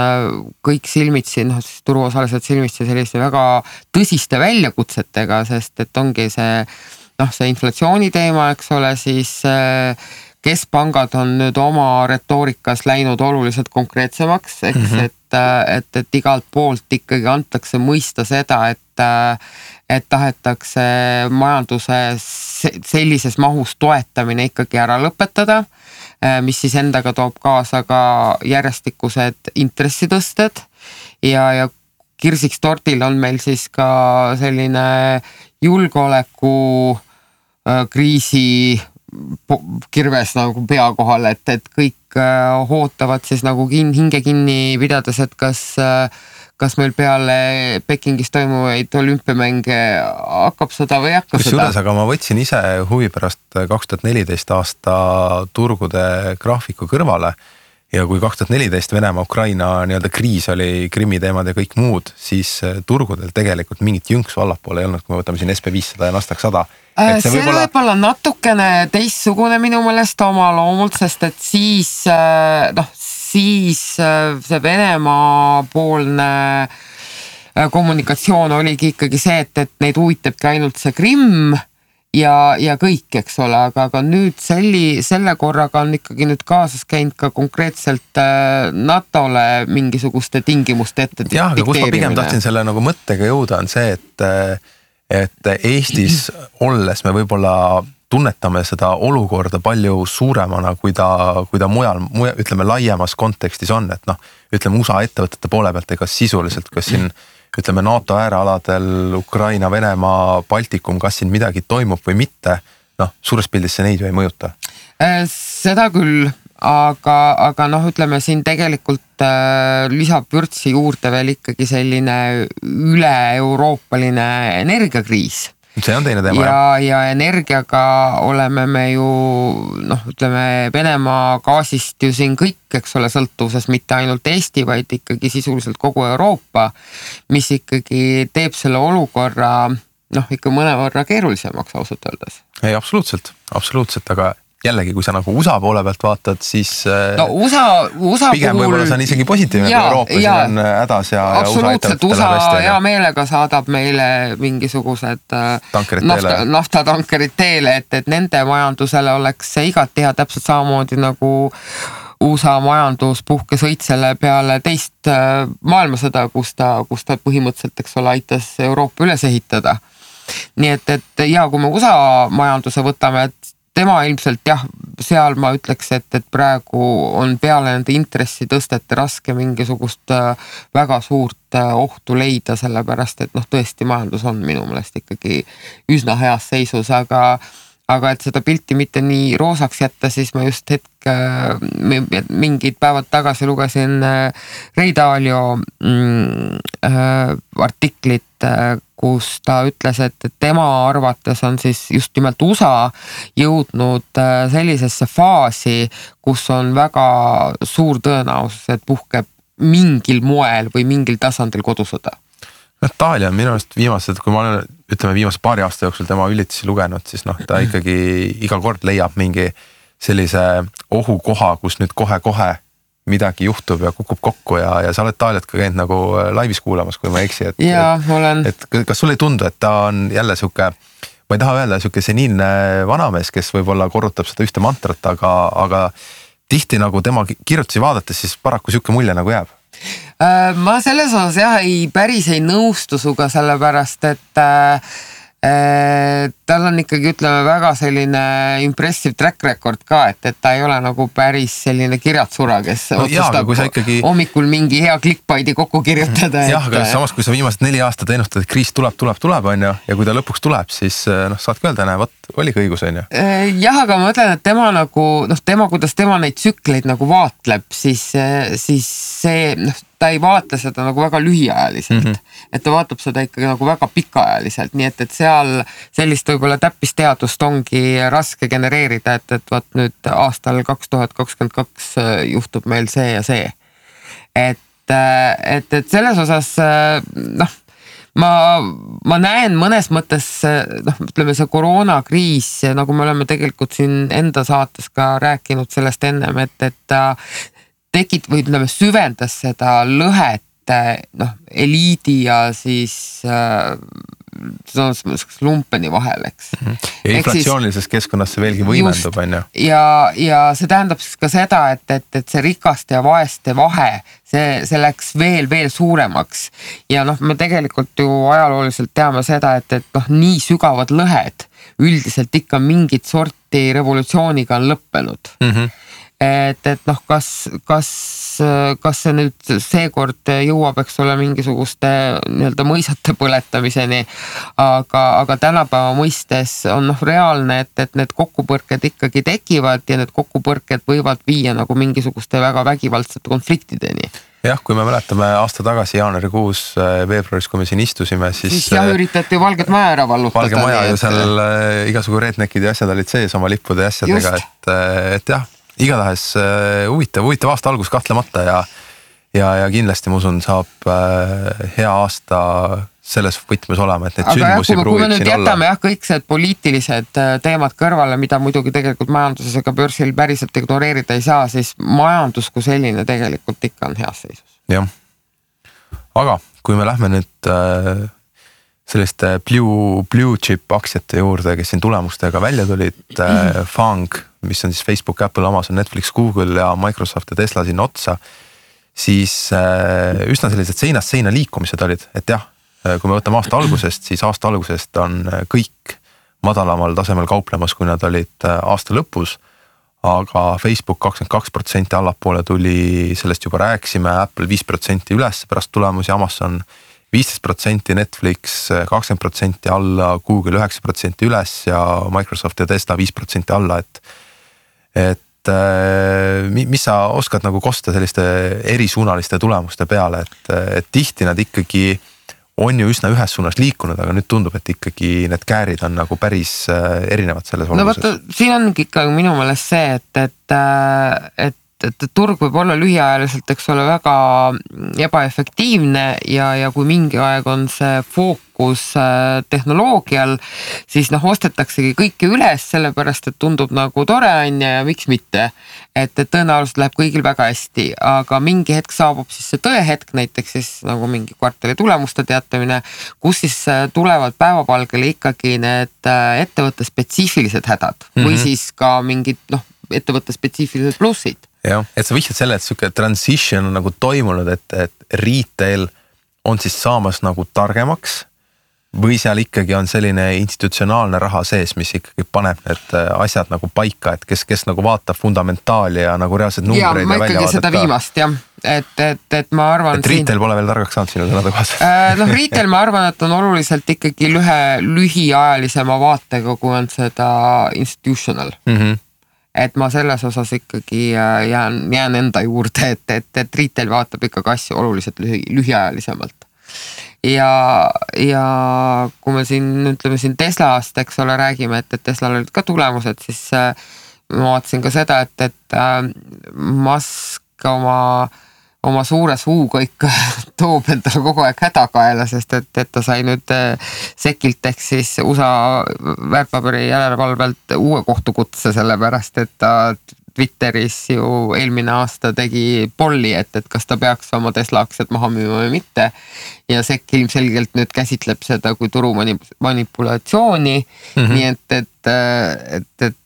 kõik silmitsi, siis turuosalised silmitsi selliste väga tõsiste väljakutsetega, sest et ongi see inflatsiooni teema, eks ole, siis keskpangad on nüüd oma retoorikas läinud oluliselt konkreetsemaks, et igalt poolt ikkagi antakse mõista seda, et tahetakse majanduse sellises mahus toetamine ikkagi ära lõpetada, mis siis endaga toob kaasa ka järjestikused intressitõsted ja kirsiks tortil on meil siis ka selline julgeoleku kriisi kirves nagu pea kohal, et kõik ootavad siis nagu hinge kinni pidades, et kas meil peale Pekingis toimuvaid olümpiamänge hakkab seda või ei hakka seda. Kusjuures, aga ma võtsin ise huvi pärast 2014 aasta turgude graafiku kõrvale ja kui 2014 Venemaa-Ukraina nii-öelda kriis oli, Krimmi teemad ja kõik muud, siis turgudel tegelikult mingit jõnksu allapoole ei olnud, kui me võtame siin SP500 ja Nasdaq 100. See võib-olla natukene teistsugune minu meelest oma loomult, sest et siis see Venemaa poolne kommunikatsioon oligi ikkagi see, et neid huvitabki ainult see Krimm ja kõik, eks ole, aga nüüd selle korraga on ikkagi nüüd kaasas käinud ka konkreetselt NATO-le mingisuguste tingimuste ette dikteerimine. Jah, aga kus ma pigem tahtsin selle nagu mõttega jõuda on see, et Eestis olles me võib-olla tunnetame seda olukorda palju suuremana, kui ta mujal, ütleme laiemas kontekstis on, et noh, ütleme USA ettevõtete poole pealt, ega sisuliselt, kas siin ütleme NATO äärealadel, Ukraina, Venemaa, Baltikum, kas siin midagi toimub või mitte, noh, suures pildis see neid ju ei mõjuta. Seda küll, aga noh, ütleme siin tegelikult lisab vürtsi juurde veel ikkagi selline üle-euroopaline energiakriis. See on teine teema, ja energiaga oleme me ju, noh, ütleme Venemaa gaasist ju siin kõik, eks ole, sõltuvuses mitte ainult Eesti, vaid ikkagi sisuliselt kogu Euroopa, mis ikkagi teeb selle olukorra, noh, ikka mõnevõrra keerulisemaks ausalt öeldes. Ei, absoluutselt, aga jällegi, kui sa nagu USA poole pealt vaatad, siis no, USA pigem puhul võib-olla see on isegi positiivne, kui Euroopa siin on hädas ja USA ettevõtetele USA hea meelega saadab meile mingisugused naftatankerid teele, et nende majandusele oleks see igati hea täpselt samamoodi nagu USA majandus puhkes õitsele peale teist maailmasõda, kus ta põhimõtteliselt, eks ole, aitas Euroopa üles ehitada. Nii et ja kui me USA majanduse võtame, et tema ilmselt jah, seal ma ütleks, et praegu on peale nende intressitõstete raske mingisugust väga suurt ohtu leida, sellepärast et noh, tõesti majandus on minu meelest ikkagi üsna heas seisus, aga et seda pilti mitte nii roosaks jätta, siis ma just mingid päevad tagasi lugesin Ray Dalio artiklit, kus ta ütles, et tema arvates on siis just nimelt USA jõudnud sellisesse faasi, kus on väga suur tõenäosus, et puhkeb mingil moel või mingil tasandil kodusõda. Itaalia on minu arust viimased, kui ma olen, ütleme viimase paari aasta jooksul tema ülitusi lugenud, siis noh, ta ikkagi iga kord leiab mingi sellise ohukoha, kus nüüd kohe-kohe midagi juhtub ja kukub kokku ja sa oled Itaaliat ka käinud nagu laivis kuulamas, kui ma eksi. Et kas sulle ei tundu, et ta on jälle siuke, ma ei taha öelda siuke seniilne vanamees, kes võib-olla korrutab seda ühte mantrat, aga tihti nagu tema kirjutusi vaadates, siis paraku siuke mulje nagu jääb. Ma selles osas jah, päris ei nõustu suga, sellepärast, et tal on ikkagi, ütleme, väga selline impressive track record ka, et ta ei ole nagu päris selline kirjatsura, kes otsustab hommikul mingi hea clickbaiti kokku kirjutada. Jah, aga samas, kui sa viimased 4 aastat ennustad, et kriis tuleb, on ju, ja kui ta lõpuks tuleb, siis saadki öelda, oligi õigus, on ju. Jah, aga ma mõtlen, et tema nagu, kuidas tema neid tsükleid nagu vaatleb, siis see, ta ei vaata seda nagu väga lühiajaliselt, et ta vaatab seda ikkagi nagu väga pikaajaliselt, nii et seal sellist võib-olla täppisteadust ongi raske genereerida, et vaat nüüd aastal 2022 juhtub meil see ja see. Et selles osas, noh, ma näen mõnes mõttes, noh, ütleme see koroonakriis, nagu me oleme tegelikult siin enda saates ka rääkinud sellest ennem, et ta või ütleme süvendas seda lõhet, noh, eliidi ja siis lumpeni vahel, eks. Ja inflatsioonilises keskkonnas see veelgi võimendub, on ju. Ja see tähendab siis ka seda, et see rikaste ja vaeste vahe, see läks veel suuremaks. Ja noh, me tegelikult ju ajalooliselt teame seda, et noh, nii sügavad lõhed üldiselt ikka mingit sorti revolutsiooniga on lõppenud. Et noh, kas see nüüd seekord jõuab, eks ole, mingisuguste nii-öelda mõisate põletamiseni, aga tänapäeva mõistes on noh reaalne, et need kokkupõrked ikkagi tekivad ja need kokkupõrked võivad viia nagu mingisuguste väga vägivaldsete konfliktideni. Jah, kui me mäletame aasta tagasi jaanuarikuus, veebruaris, kui me siin istusime, siis jah, üritati Valget Maja ära vallutada. Valge Maja ju seal igasugu redneckid ja asjad olid sees oma lippude ja asjadega, et jah, igatahes huvitav aasta algus kahtlemata ja kindlasti ma usun saab hea aasta selles võtmes olema, et need sündmusi pruugib siin olla. Kui me nüüd jätame kõik see poliitilised teemad kõrvale, mida muidugi tegelikult majanduses ega börsil päriselt ignoreerida ei saa, siis majandus kui selline tegelikult ikka on heas seisus. Jah, aga kui me lähme nüüd selliste blue chip aktsiate juurde, kes siin tulemustega välja tulid, FANG, mis on siis Facebook, Apple, Amazon, Netflix, Google ja Microsoft ja Tesla sinna otsa, siis üsna sellised seinast seina liikumised olid, et jah, kui me võtame aasta algusest, siis aasta algusest on kõik madalamal tasemel kauplemas, kui nad olid aasta lõpus, aga Facebook 22% allapoole tuli, sellest juba rääkisime, Apple 5% üles pärast tulemusi, Amazon 15%, Netflix 20% alla, Google 9% üles ja Microsoft ja Tesla 5% alla, et mis sa oskad nagu kosta selliste erisuunaliste tulemuste peale, et tihti nad ikkagi on ju üsna ühes suunas liikunud, aga nüüd tundub, et ikkagi need käärid on nagu päris erinevad selles olulises. No vaata, siin ongi ikka minu meelest see, et turg võib olla lühiajaliselt, eks ole, väga ebaefektiivne ja kui mingi aeg on see fookus tehnoloogial, siis ostetaksegi kõike üles, sellepärast, et tundub nagu tore on ja miks mitte. Et tõenäoliselt läheb kõigil väga hästi, aga mingi hetk saabub siis see tõehetk, näiteks siis nagu mingi kvartali tulemuste teatamine, kus siis tulevad päevapalgele ikkagi need ettevõtte spetsiifilised hädad või siis ka mingid ettevõtte spetsiifilised plussid. Jah, et sa vihjad selle, et siuke transition on nagu toimunud, et retail on siis saamas nagu targemaks või seal ikkagi on selline institutsionaalne raha sees, mis ikkagi paneb need asjad nagu paika, et kes nagu vaatab fundamentaali ja nagu reaalsed numbreid ja välja vaadata. Seda viimast, jah. Et ma arvan... Et retail pole veel targaks saanud sinu sõnade kohas. Retail ma arvan, et on oluliselt ikkagi lühiajalisema vaatega, kui on seda institutional. Et ma selles osas ikkagi jään enda juurde, et retail vaatab ikkagi asju oluliselt lühiajalisemalt. Ja kui me ütleme siin Teslast, eks ole, räägime, et Teslal olid ka tulemused, siis ma vaatasin ka seda, et Musk oma suure suuga ikka toob endale kogu aeg hädakaela, sest et ta sai nüüd SEC-ilt ehk siis USA väärtpaberi järelevalvelt uue kohtukutse, sellepärast et ta Twitteris ju eelmine aasta tegi polli, et kas ta peaks oma Tesla aktsiad maha müüma või mitte. Ja SEC ilmselgelt nüüd käsitleb seda kui turu manipulatsiooni, nii et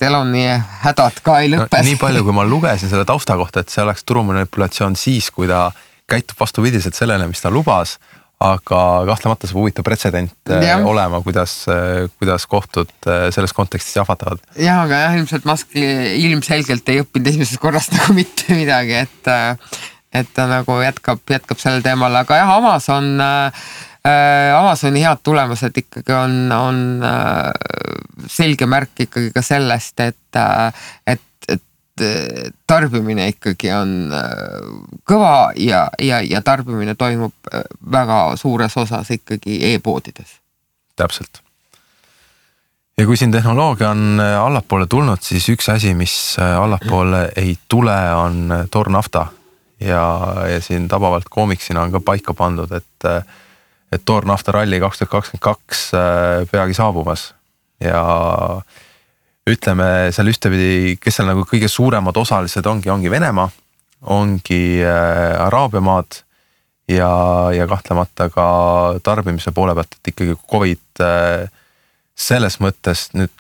Eloni hädad ka ei lõppes. Nii palju, kui ma lugesin selle tausta kohta, et see oleks turu manipulatsioon siis, kui ta käitub vastupidiselt sellele, mis ta lubas, aga kahtlemata see huvitav pretsedent olema, kuidas kohtud selles kontekstis jahvatavad. Jah, aga ilmselt Musk ilmselgelt ei õppinud esimesest korrast nagu mitte midagi, et ta nagu jätkab sellel teemal, aga jah, Amazoni head tulemused ikkagi on selge märk ikkagi ka sellest, et tarbimine ikkagi on kõva ja tarbimine toimub väga suures osas ikkagi e-poodides. Täpselt. Ja kui siin tehnoloogia on allapoole tulnud, siis üks asi, mis allapoole ei tule, on toornafta. Ja siin tabavalt koomiksina on ka paika pandud, et toornafta ralli 2022 peagi saabumas ja ütleme seal ühtepidi, kes seal nagu kõige suuremad osalised ongi Venemaa, ongi Araabia maad ja kahtlemata ka tarbimise poole pealt, et ikkagi COVID selles mõttes nüüd,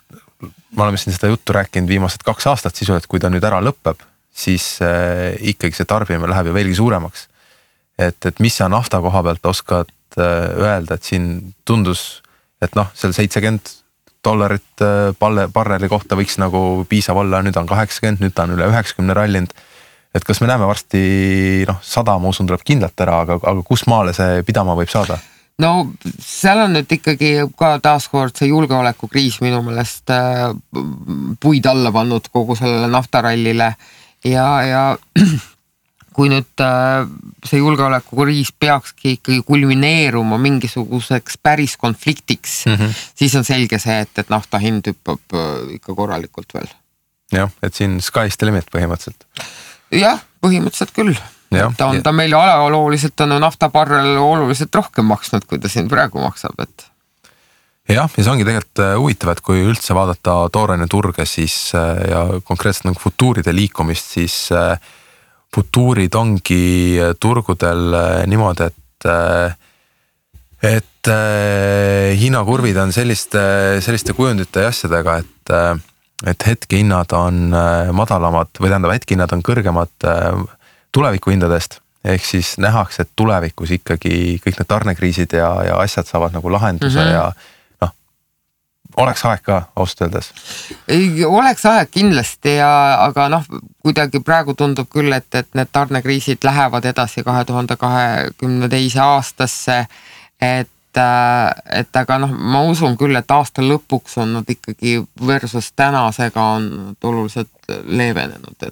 me oleme siin seda juttu rääkinud viimased 2 aastat sisu, et kui ta nüüd ära lõpeb, siis ikkagi see tarbimine läheb ju veelgi suuremaks. Et mis sa nafta koha pealt oskad öelda, et siin tundus, et seal $70 barreli kohta võiks nagu piisav olla, nüüd on 80, nüüd on üle 90 rallinud. Et kas me näeme varsti 100, ma usun, tuleb kindlalt ära, aga kus maale see pidama võib saada? No seal on nüüd ikkagi ka taaskord see julgeolekukriis minu meelest puid alla pannud kogu sellele naftarallile ja kui nüüd see julgeolekukriis peakski ikkagi kulmineeruma mingisuguseks päris konfliktiks, siis on selge see, et nafta hind hüppab ikka korralikult veel. Jah, et siin sky's the limit põhimõtteliselt. Jah, põhimõtteliselt küll. Ta meil ajalooliselt on naftabarrel oluliselt rohkem maksnud, kui ta siin praegu maksab, et... Jah, ja see ongi tegelikult huvitav, et kui üldse vaadata tooraine turge siis, ja konkreetselt nagu futuuride liikumist, siis futuurid ongi turgudel niimoodi, et hinnakurvid on selliste kujundite ja asjadega, et hetkehinnad on madalamad või tähendab hetkehinnad on kõrgemad tulevikuhindadest ehk siis nähakse, et tulevikus ikkagi kõik need tarnekriisid ja asjad saavad nagu lahenduse ja oleks aeg ka ausalt öeldes. Oleks aeg kindlasti aga kuidagi praegu tundub küll, et need tarnekriisid lähevad edasi 2022 aastasse, et aga ma usun küll, et aasta lõpuks on nad ikkagi versus tänasega on oluliselt leevenenud,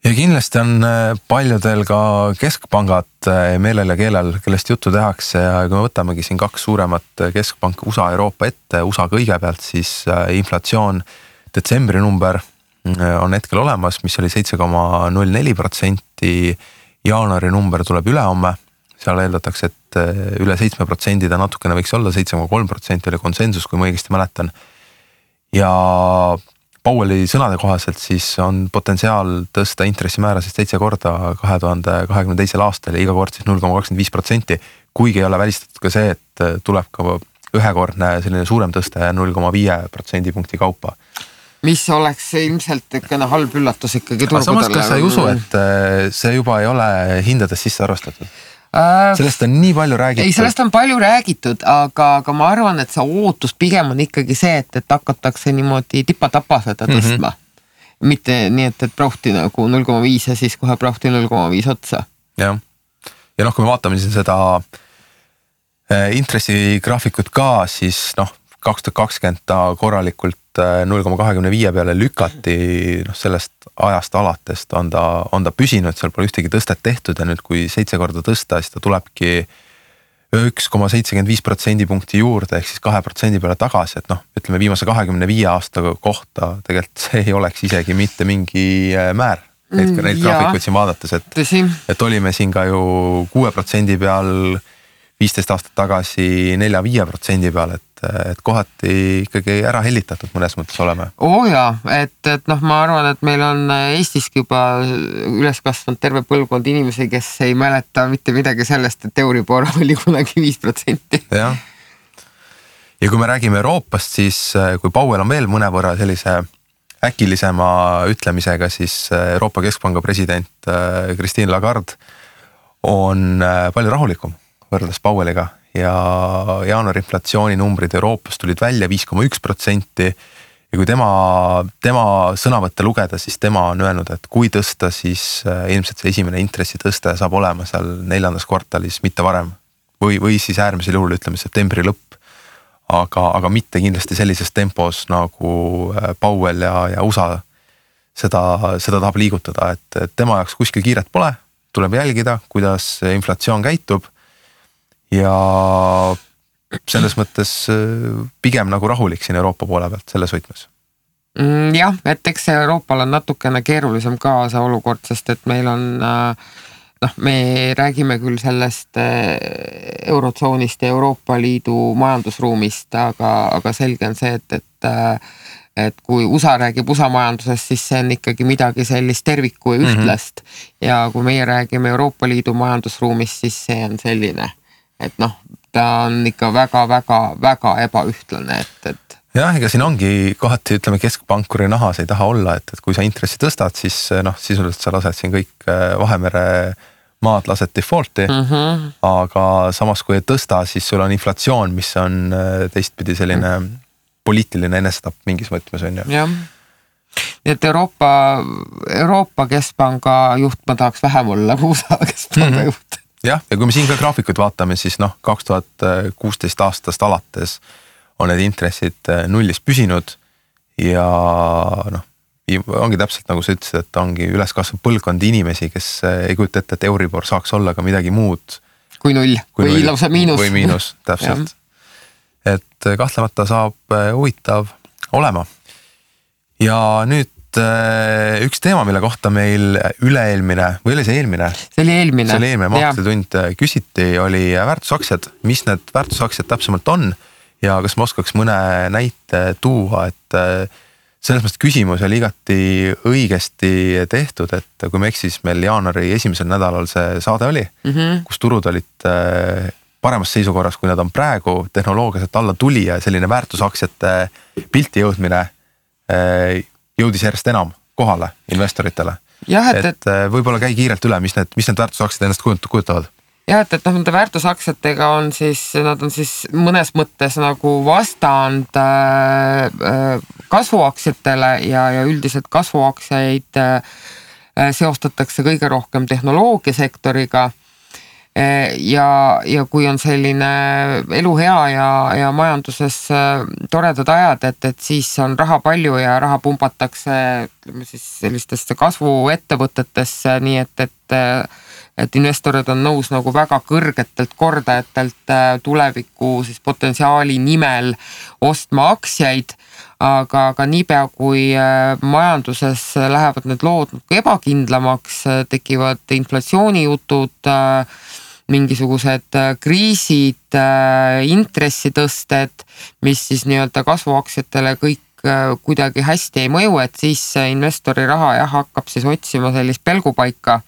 ja kindlasti on paljudel ka keskpangad meelel ja keelel, kellest juttu tehakse ja kui me võtamegi siin 2 suuremat keskpanka USA ja Euroopa ette, USA kõigepealt, siis inflatsioon detsembri number on hetkel olemas, mis oli 7,04%, jaanuari number tuleb ülehomme, seal eeldatakse, et üle 7% ta natukene võiks olla, 7,3% oli konsensus, kui ma õigesti mäletan. Ja Powelli sõnade kohaselt siis on potentsiaal tõsta intressimäärasid 7 korda 2022. aastal ja iga kord siis 0,25%, kuigi ei ole välistatud ka see, et tuleb ka ühekordne selline suurem tõste 0,5% punkti kaupa. Mis oleks ilmselt ikkene halb üllatus ikkagi turgudele. Samas, kas sa ei usu, et see juba ei ole hindades sisse arvastatud? Sellest on nii palju räägitud. Ei, sellest on palju räägitud, aga ma arvan, et see ootus pigem on ikkagi see, et hakatakse niimoodi tipa-tapa seda tõstma. Mitte nii, et prauhti nagu 0,5 ja siis kohe prauhti 0,5 otsa. Ja kui me vaatame siin seda intressigraafikut ka, siis 2020 ta korralikult 0,25 peale lükati, sellest ajast alatest on ta püsinud, seal pole ühtegi tõstet tehtud ja nüüd kui 7 korda tõsta, siis ta tulebki 1,75% punkti juurde ehk siis 2% peale tagasi, et ütleme viimase 25 aasta kohta tegelikult see ei oleks isegi mitte mingi määr. Neid graafikuid siin vaadates, et olime siin ka ju 6% peal 15 aastat tagasi 4-5% peal, et kohati ikkagi ära hellitatud mõnes mõttes oleme. Et ma arvan, et meil on Eestiski juba üles kasvanud terve põlvkond inimesi, kes ei mäleta mitte midagi sellest, et Euribor oli kunagi 5%. Ja kui me räägime Euroopast, siis kui Powell on veel mõnevõrra sellise äkilisema ütlemisega, siis Euroopa Keskpanga president Christine Lagarde on palju rahulikum võrreldes Powelliga ja jaanuari inflatsiooni numbrid Euroopas tulid välja 5,1% ja kui tema sõnavõtte lugeda, siis tema on öelnud, et kui tõsta, siis ilmselt see esimene intressi tõste saab olema seal 4. kvartalis, mitte varem või siis äärmisel juhul ütleme septembri lõpp, aga mitte kindlasti sellises tempos nagu Powell ja USA seda tahab liigutada, et tema jaoks kuskil kiiret pole, tuleb jälgida, kuidas inflatsioon käitub ja selles mõttes pigem nagu rahulik siin Euroopa poole pealt selles võtmes. Jah, et eks Euroopal on natukene keerulisem ka see olukord, sest et meil on, me räägime küll sellest eurotsoonist ja Euroopa Liidu majandusruumist, aga selge on see, et kui USA räägib USA majandusest, siis see on ikkagi midagi sellist terviku ja ühtlast ja kui meie räägime Euroopa Liidu majandusruumist, siis see on selline et ta on ikka väga ebaühtlane, et jah, ega siin ongi kohati, ütleme, keskpankuri nahas ei taha olla, et kui sa intressi tõstad, siis sisuliselt sa lased siin kõik Vahemere maad lased defaulti, aga samas kui ei tõsta, siis sul on inflatsioon, mis on teistpidi selline poliitiline enesetapp mingis mõtmes on ju. Jah. Nii et Euroopa Keskpanga juht ma tahaks vähem olla kui USA Keskpanga juht. Jah, ja kui me siin ka graafikud vaatame, siis 2016 aastast alates on need intressid nullis püsinud ja ongi täpselt nagu sa ütlesid, et ongi üles kasvanud põlvkond inimesi, kes ei kujuta ette, et Euribor saaks olla ka midagi muud. Kui null või lausa miinus. Või miinus, täpselt. Et kahtlemata saab huvitav olema. Ja nüüd üks teema, mille kohta meil üle-eelmine, või oli see eelmine? See oli eelmine. Maksutund küsiti, oli väärtusaktsiad, mis need väärtusaktsiad täpsemalt on ja kas ma oskaks mõne näite tuua, et selles mõttes küsimus oli igati õigesti tehtud, et kui me eksis meil jaanuari esimesel nädalal see saade oli, kus turud olid paremas seisukorras, kui nad on praegu, tehnoloogiaselt alla tuli ja selline väärtusaktsiate pilti jõudmine jõudis järjest enam kohale investoritele. Jah, et võib-olla käi kiirelt üle, mis need väärtusaktsiad ennast kujutavad. Jah, et nende väärtusaktsiatega on siis, nad on siis mõnes mõttes nagu vastand kasvuaktsiatele ja üldiselt kasvuaktsiaid seostatakse kõige rohkem tehnoloogiasektoriga. Ja kui on selline elu hea ja majanduses toredad ajad, et siis on raha palju ja raha pumbatakse siis sellistesse kasvuettevõtetesse, nii et investorid on nõus nagu väga kõrgetelt kordajatelt tuleviku siis potentsiaali nimel ostma aktsiaid, aga niipea kui majanduses lähevad need lood ebakindlamaks, tekivad inflatsioonijutud, mingisugused kriisid, intressitõsted, mis siis nii-öelda kasvuaktsiatele kõik kuidagi hästi ei mõju, et siis investori raha hakkab siis otsima sellist pelgupaika.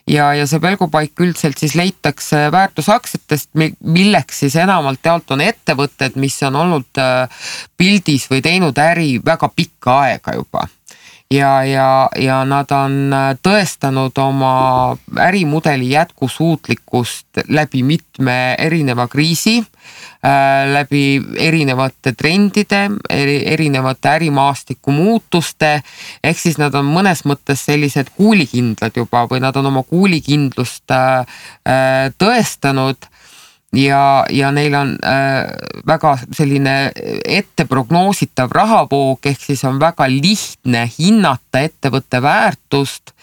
Ja see pelgupaik üldiselt siis leitakse väärtusaktsiatest, milleks siis enamalt jaolt on ettevõtted, mis on olnud pildis või teinud äri väga pikka aega juba. Ja nad on tõestanud oma ärimudeli jätkusuutlikkust läbi mitme erineva kriisi, läbi erinevate trendide, erinevate ärimaastiku muutuste, ehk siis nad on mõnes mõttes sellised kuulikindlad juba või nad on oma kuulikindlust tõestanud ja neil on väga selline etteprognoositav rahavoog, ehk siis on väga lihtne hinnata ettevõtte väärtust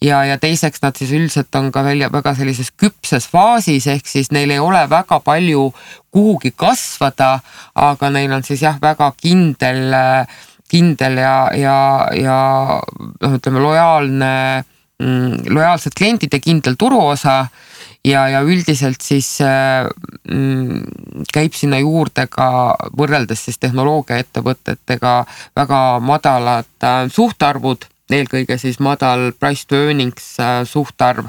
ja teiseks nad siis üldiselt on ka väga sellises küpses faasis, ehk siis neil ei ole väga palju kuhugi kasvada, aga neil on siis väga kindel ja ütleme lojaalsed kliendid ja kindel turuosa ja üldiselt siis käib sinna juurde ka võrreldes siis tehnoloogiaettevõtetega väga madalad suhtarvud, eelkõige siis madal price to earnings suhtarv.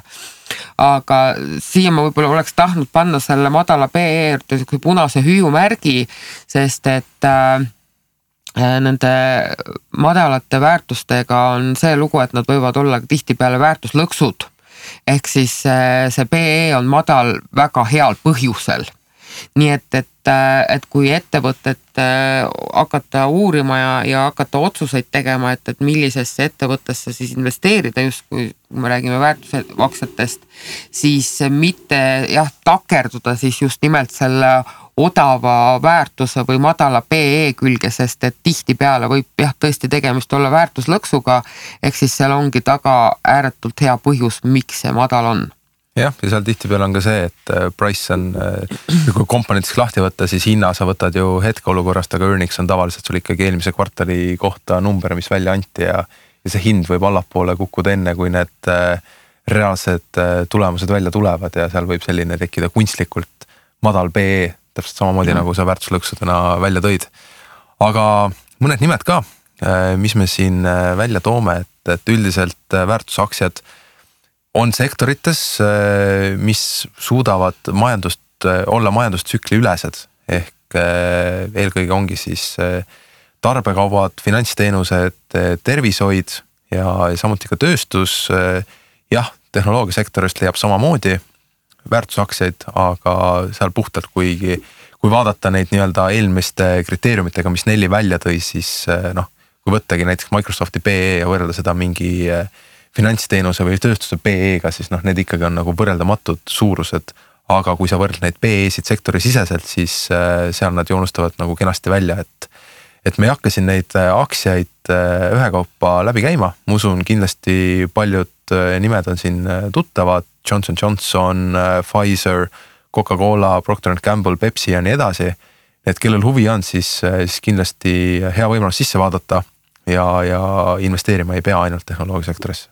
Aga siia ma võib-olla oleks tahtnud panna selle madala PE punase hüüumärgi, sest et nende madalate väärtustega on see lugu, et nad võivad olla tihtipeale väärtuslõksud. Ehk siis see PE on madal väga heal põhjusel. Nii et kui ettevõtet hakata uurima ja hakata otsuseid tegema, et millisesse ettevõttesse siis investeerida, just kui me räägime väärtusaktsiatest, siis mitte takerduda siis just nimelt selle odava väärtuse või madala PE külge, sest et tihtipeale võib tõesti tegemist olla väärtuslõksuga, ehk siis seal ongi taga ääretult hea põhjus, miks see madal on. Jah, ja seal tihtipeale on ka see, et price on, kui komponentiks lahti võtta, siis hinna sa võtad ju hetkeolukorrast, aga earnings on tavaliselt sul ikkagi eelmise kvartali kohta number, mis välja anti ja see hind võib allapoole kukkuda enne, kui need reaalsed tulemused välja tulevad ja seal võib selline tekkida kunstlikult madal PE, täpselt samamoodi nagu sa väärtuslõksudena välja tõid. Aga mõned nimed ka, mis me siin välja toome, et üldiselt väärtusaktsiad on sektorites, mis suudavad olla majandustsükli ülesed, ehk eelkõige ongi siis tarbekaubad, finantsteenused, tervishoid ja samuti ka tööstus. Jah, tehnoloogiasektorist leiab samamoodi väärtusaktsiaid, aga seal puhtalt, kui vaadata neid nii-öelda eelmiste kriteeriumitega, mis Nelli välja tõi, siis kui võttagi näiteks Microsofti PE ja võrrelda seda mingi finantsteenuse või tööstuse PE-ga, siis need ikkagi on nagu võrreldamatud suurused, aga kui sa võrdled neid PE-sid sektori siseselt, siis seal nad joonustavad nagu kenasti välja, et me ei hakka siin neid aktsiaid ühekaupa läbi käima, ma usun kindlasti paljud nimed on siin tuttavad, Johnson & Johnson, Pfizer, Coca-Cola, Procter & Gamble, Pepsi ja nii edasi, et kellel huvi on, siis kindlasti hea võimalus sisse vaadata ja investeerima ei pea ainult tehnoloogiasektorisse.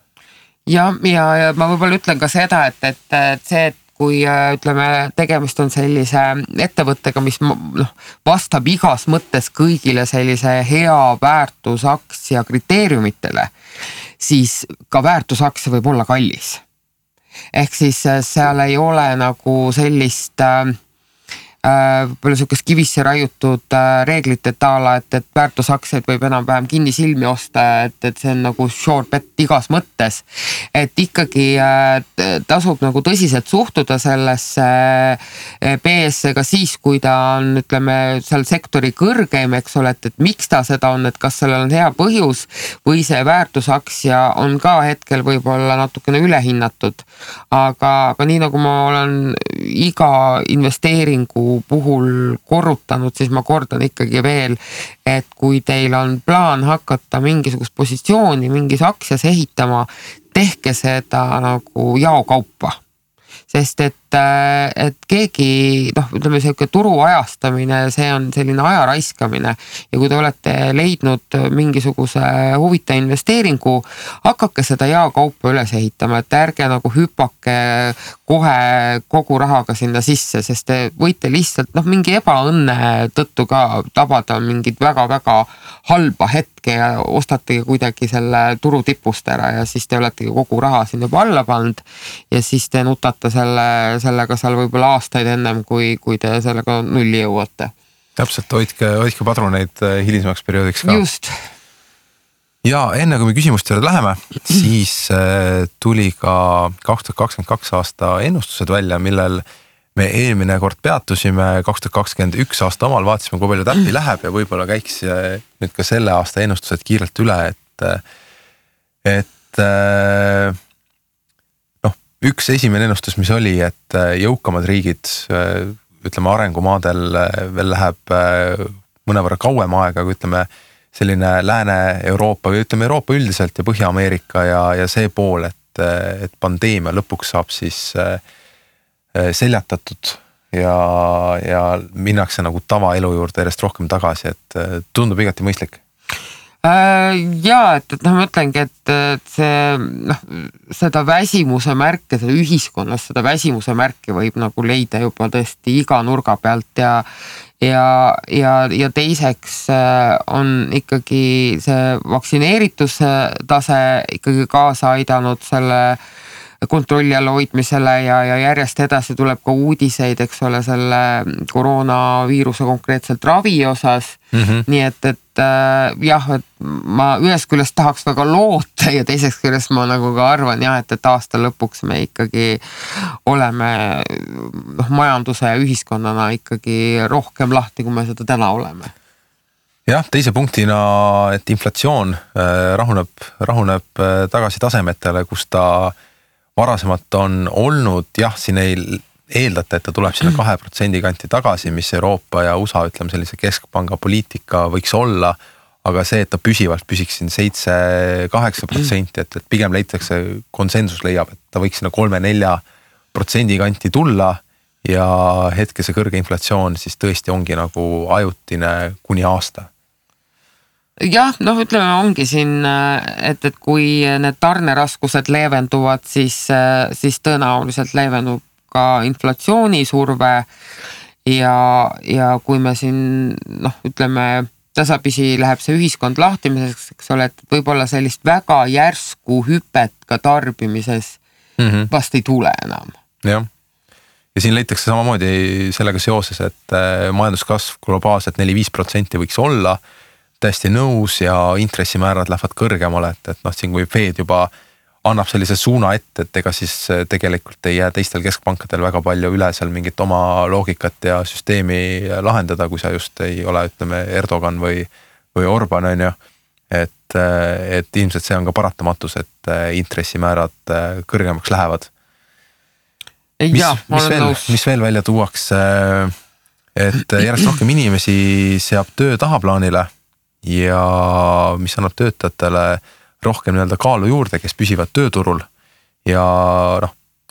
Ja ma võib-olla ütlen ka seda, et see, et kui ütleme, tegemist on sellise ettevõttega, mis vastab igas mõttes kõigile sellise hea väärtusaktsia kriteeriumitele, siis ka väärtusaktsia võib olla kallis. Ehk siis seal ei ole nagu sellist palju sihukest kivisse raiutud reeglite taala, et väärtusaktsiaid võib enam-vähem kinnisilmi osta, et see on nagu sure bet igas mõttes. Et ikkagi tasub nagu tõsiselt suhtuda sellesse PS-e ka siis, kui ta on, ütleme, seal sektori kõrgeim, eks ole, et miks ta seda on, et kas sellel on hea põhjus või see väärtusaktsia on ka hetkel võib-olla natukene ülehinnatud. Aga nii nagu ma olen iga investeeringu puhul korrutanud, siis ma kordan ikkagi veel, et kui teil on plaan hakata mingisugust positsiooni mingis aktsias ehitama, tehke seda nagu jaokaupa. Sest et keegi, ütleme selline turu ajastamine, see on selline aja raiskamine ja kui te olete leidnud mingisuguse huvita investeeringu, hakake seda jaokaupa üles ehitama, et ärge nagu hüpake kohe kogu rahaga sinna sisse, sest te võite lihtsalt mingi ebaõnne tõttu ka tabada mingit väga-väga halba hetke ja ostategi kuidagi selle turu tipust ära ja siis te oletegi kogu raha siin juba alla pannud ja siis te nutate sellega seal võib-olla aastaid ennem, kui te sellega nulli jõuate. Täpselt, hoidke padruneid hilisemaks perioodiks ka. Just. Ja enne kui me küsimuste juurde läheme, siis tuli ka 2022 aasta ennustused välja, millel me eelmine kord peatusime, 2021 aasta omal vaatasime, kui palju täppi läheb ja võib-olla käiks nüüd ka selle aasta ennustused kiirelt üle, et üks esimene ennustus, mis oli, et jõukamad riigid, ütleme arengumaadel veel läheb mõnevõrra kauem aega, kui ütleme selline Lääne-Euroopa või ütleme Euroopa üldiselt ja Põhja-Ameerika ja see pool, et pandeemia lõpuks saab siis seljatatud ja minnakse nagu tavaelu juurde järjest rohkem tagasi, et tundub igati mõistlik. Jaa, et ma mõtlengi, et see seda väsimuse märke, seda ühiskonnas seda väsimuse märke võib nagu leida juba tõesti iga nurga pealt ja teiseks on ikkagi see vaktsineerituse tase ikkagi kaasa aidanud selle kontrolli alla hoidmisele ja järjest edasi tuleb ka uudiseid, eks ole, selle koroonaviiruse konkreetselt ravi osas. Nii et jah, et ma ühest küljest tahaks väga loota ja teiseks küljest ma nagu ka arvan jah, et aasta lõpuks me ikkagi oleme majanduse ja ühiskonnana ikkagi rohkem lahti, kui me seda täna oleme. Jah, teise punktina, et inflatsioon rahuneb tagasi tasemetele, kus ta varasemalt on olnud, jah, siin ei eeldata, et ta tuleb sinna 2% kanti tagasi, mis Euroopa ja USA, ütleme sellise keskpanga poliitika võiks olla, aga see, et ta püsivalt püsiks siin 7-8%, et pigem leitakse, konsensus leiab, et ta võiks sinna 3-4% kanti tulla ja hetke see kõrge inflatsioon siis tõesti ongi nagu ajutine kuni aasta. Jah, ütleme ongi siin, et kui need tarneraskused leevenduvad, siis tõenäoliselt leevendub ka inflatsioonisurve ja kui me siin, ütleme, tasapisi läheb see ühiskond lahtimiseks, eks ole, et võib-olla sellist väga järsku hüpet ka tarbimises vast ei tule enam. Jah. Ja siin leitakse samamoodi sellega seoses, et majanduskasv globaalselt 4-5% võiks olla, täiesti nõus ja intressimäärad lähevad kõrgemale, et siin kui Fed juba annab sellise suuna ette, et ega siis tegelikult ei jää teistel keskpankadel väga palju üle seal mingit oma loogikat ja süsteemi lahendada, kui sa just ei ole, ütleme, Erdogan või Orban, on ju. Et ilmselt see on ka paratamatus, et intressimäärad kõrgemaks lähevad. Mis veel välja tuuakse, et järjest rohkem inimesi seab töö tahaplaanile ja mis annab töötajatele rohkem kaalu juurde, kes püsivad tööturul ja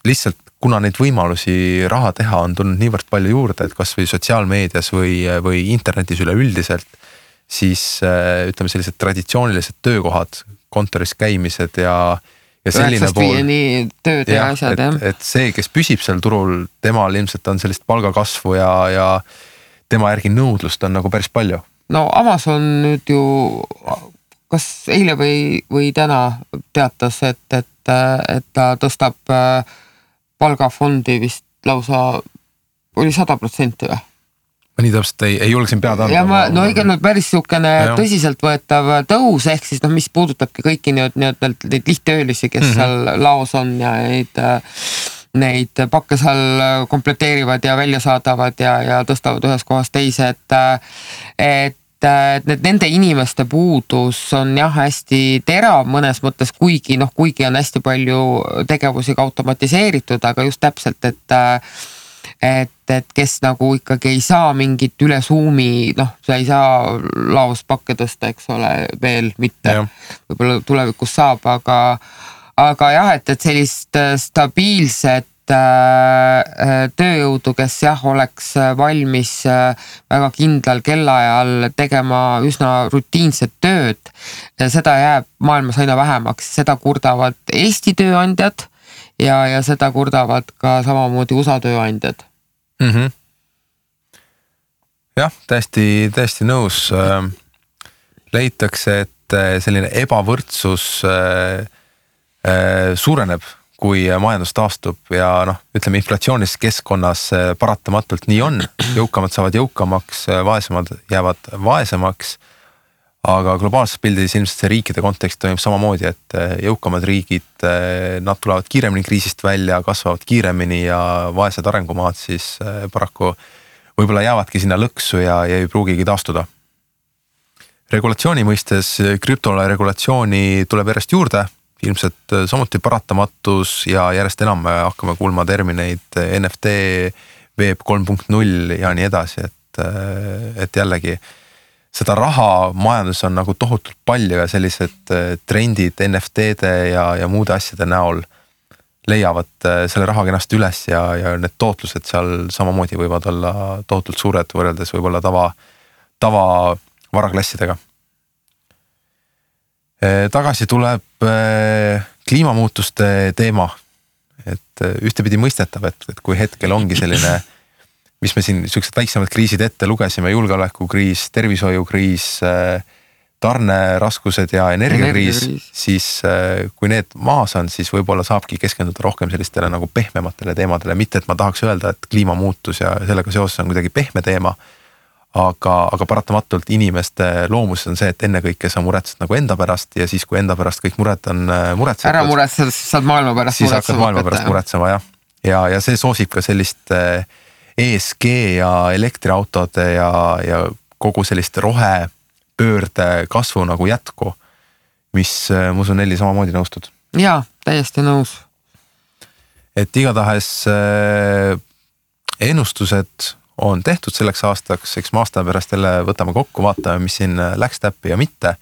lihtsalt kuna neid võimalusi raha teha on tulnud niivõrd palju juurde, et kas või sotsiaalmeedias või internetis üleüldiselt, siis ütleme sellised traditsioonilised töökohad, kontoris käimised ja selline pool. Tööd ja asjad, jah. Et see, kes püsib seal turul, temal ilmselt on sellist palgakasvu ja tema järgi nõudlust on nagu päris palju. No Amazon nüüd ju, kas eile või täna teatas, et ta tõstab palgafondi vist lausa, oli 100% või? Ma nii täpselt ei julge siin pead anda. Ja no ikka päris niisugune tõsiseltvõetav tõus, ehk siis mis puudutabki kõiki neid lihttöölisi, kes seal laos on ja neid pakke seal kompleteerivad ja välja saadavad ja tõstavad ühes kohas teise, et nende inimeste puudus on hästi terav mõnes mõttes, kuigi on hästi palju tegevusi ka automatiseeritud, aga just täpselt, et kes nagu ikkagi ei saa mingit üle Zoomi, sa ei saa laos pakke tõsta, eks ole, veel mitte. Võib-olla tulevikus saab, aga jah, et sellist stabiilset tööjõudu, kes oleks valmis väga kindlal kellaajal tegema üsna rutiinset tööd, seda jääb maailmas aina vähemaks, seda kurdavad Eesti tööandjad ja seda kurdavad ka samamoodi USA tööandjad. Jah, täiesti nõus. Leitakse, et selline ebavõrdsus suureneb, kui majandus taastub ja ütleme inflatsioonilis keskkonnas paratamatult nii on. Jõukamad saavad jõukamaks, vaesemad jäävad vaesemaks, aga globaalses pildis ilmselt see riikide kontekst toimub samamoodi, et jõukamad riigid, nad tulevad kiiremini kriisist välja, kasvavad kiiremini ja vaesed arengumaad siis paraku võib-olla jäävadki sinna lõksu ja ei pruugigi taastuda. Regulatsiooni mõistes krüptole regulatsiooni tuleb järjest juurde, ilmselt samuti paratamatus ja järjest enam hakkame kuulma termineid NFT, Web 3.0 ja nii edasi, et jällegi seda raha majandus on nagu tohutult palju ja sellised trendid NFT-de ja muude asjade näol leiavad selle raha kenasti üles ja need tootlused seal samamoodi võivad olla tohutult suured võrreldes võib-olla tava varaklassidega. Tagasi tuleb kliimamuutuste teema, et ühtepidi mõistetav, et kui hetkel ongi selline, mis me siin sellised väiksemad kriisid ette lugesime, julgeolekukriis, tervishoiukriis, tarneraskused ja energiakriis, siis kui need maas on, siis võib-olla saabki keskenduda rohkem sellistele nagu pehmematele teemadele, mitte et ma tahaks öelda, et kliimamuutus ja sellega seoses on kuidagi pehme teema, aga paratamatult inimeste loomus on see, et ennekõike sa muretsed nagu enda pärast ja siis, kui enda pärast kõik mured on muretsetud. Ära muretsed, saad maailma pärast siis hakkad maailma pärast muretsema, jah. Ja see soosib ka sellist ESG ja elektriautode ja kogu sellist rohepöörde kasvu nagu jätku, mis ma usun Nelli samamoodi nõustud. Jaa, täiesti nõus. Et igatahes ennustused on tehtud selleks aastaks, eks me aasta pärast jälle võtame kokku, vaatame, mis siin läks täppi ja mitte.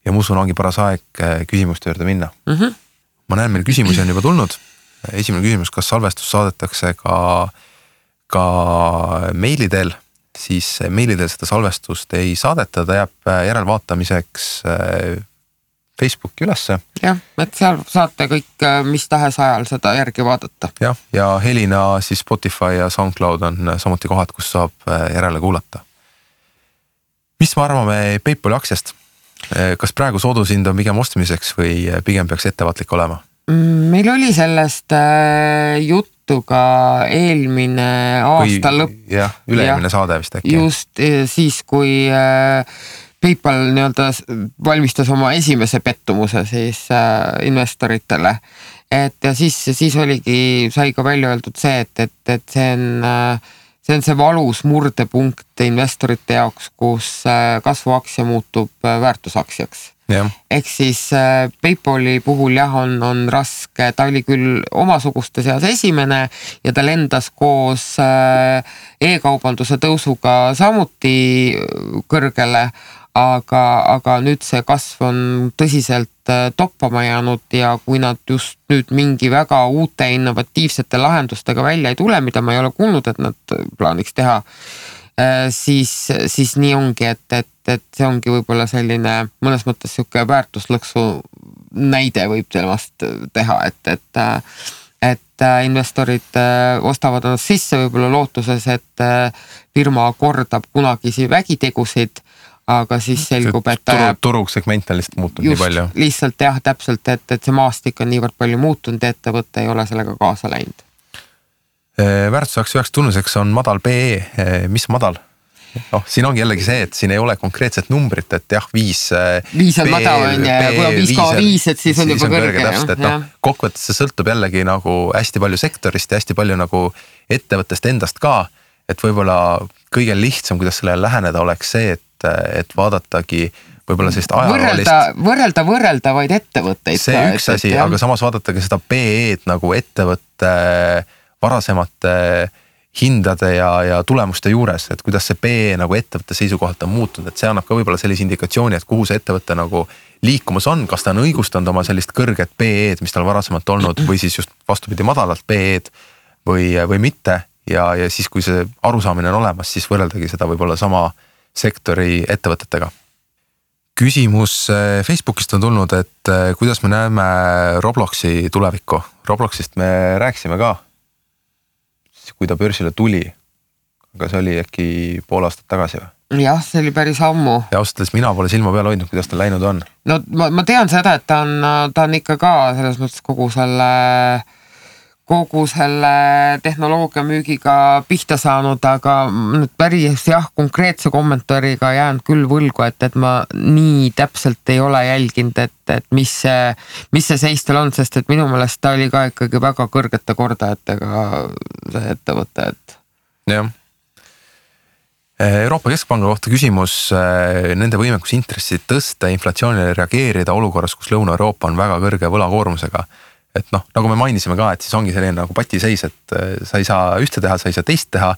Ja ma usun, ongi paras aeg küsimuste juurde minna. Ma näen, meil küsimusi on juba tulnud. Esimene küsimus, kas salvestus saadetakse ka meilidel, siis meilidel seda salvestust ei saadeta, ta jääb järelvaatamiseks Facebooki ülesse. Jah, et seal saate kõik mis tahes ajal seda järgi vaadata. Jah, ja helina siis Spotify ja SoundCloud on samuti kohad, kus saab järele kuulata. Mis me arvame PayPali aktsiast? Kas praegu soodushind on pigem ostmiseks või pigem peaks ettevaatlik olema? Meil oli sellest juttu ka eelmine aasta lõpp. Jah, üle-eelmine saade vist äkki. Just siis, kui PayPal valmistas oma esimese pettumuse siis investoritele. Ja siis oligi, sai ka välja öeldud see, et see on see valus murdepunkt investorite jaoks, kus kasvuaktsia muutub väärtusaktsiaks. Ehk siis PayPali puhul on raske, ta oli küll omasuguste seas esimene ja ta lendas koos e-kaubanduse tõusuga samuti kõrgele, aga nüüd see kasv on tõsiselt toppama jäänud ja kui nad just nüüd mingi väga uute innovatiivsete lahendustega välja ei tule, mida ma ei ole kuulnud, et nad plaaniks teha, siis nii ongi, et see ongi võib-olla selline mõnes mõttes siuke väärtuslõksu näide võib temast teha, et investorid ostavad ennast sisse võib-olla lootuses, et firma kordab kunagisi vägitegusid, aga siis selgub, et turusegment on lihtsalt muutunud nii palju. Lihtsalt jah, täpselt, et see maastik on niivõrd palju muutunud ja ettevõte ei ole sellega kaasa läinud. Väärtusaktsia üheks tunnuseks on madal PE. Mis madal? siin ongi jällegi see, et siin ei ole konkreetset numbrit, et jah, 5 on madal on ja kui on 5,5, et siis on juba kõrge. Täpselt, et kokkuvõttes see sõltub jällegi nagu hästi palju sektorist ja hästi palju nagu ettevõttest endast ka, et võib-olla kõige lihtsam, kuidas sellele läheneda oleks see, et vaadatagi võib-olla sellist ajaloolist võrreldavaid ettevõtteid. See üks asi, aga samas vaadatage seda PE-d nagu ettevõtte varasemate hindade ja tulemuste juures, et kuidas see PE nagu ettevõtte seisukohalt on muutunud, et see annab ka võib-olla sellise indikatsiooni, et kuhu see ettevõtte nagu liikumas on, kas ta on õigustanud oma sellist kõrget PE-d, mis tal varasemalt olnud või siis just vastupidi madalalt PE-d või mitte ja siis, kui see arusaamine on olemas, siis võrreldagi seda võib-olla sama sektori ettevõtetega. Küsimus Facebookist on tulnud, et kuidas me näeme Robloxi tulevikku. Robloxist me rääkisime ka, kui ta börsile tuli, aga see oli äkki pool aastat tagasi või? Jah, see oli päris ammu. Ja ausalt, mina pole silma peal hoidnud, kuidas ta läinud on. No ma tean seda, et ta on ikka ka selles mõttes kogu selle tehnoloogia müügiga pihta saanud, aga nüüd päris konkreetse kommentaariga jään küll võlgu, et ma nii täpselt ei ole jälginud, et mis see seis tal on, sest et minu meelest ta oli ka ikkagi väga kõrgete kordajatega see ettevõte, et. Jah. Euroopa Keskpanga kohta küsimus, nende võimekus intressid tõsta, inflatsioonile reageerida olukorras, kus Lõuna-Euroopa on väga kõrge võlakoormusega. Et nagu me mainisime ka, et siis ongi selline nagu patiseis, et sa ei saa ühte teha, sa ei saa teist teha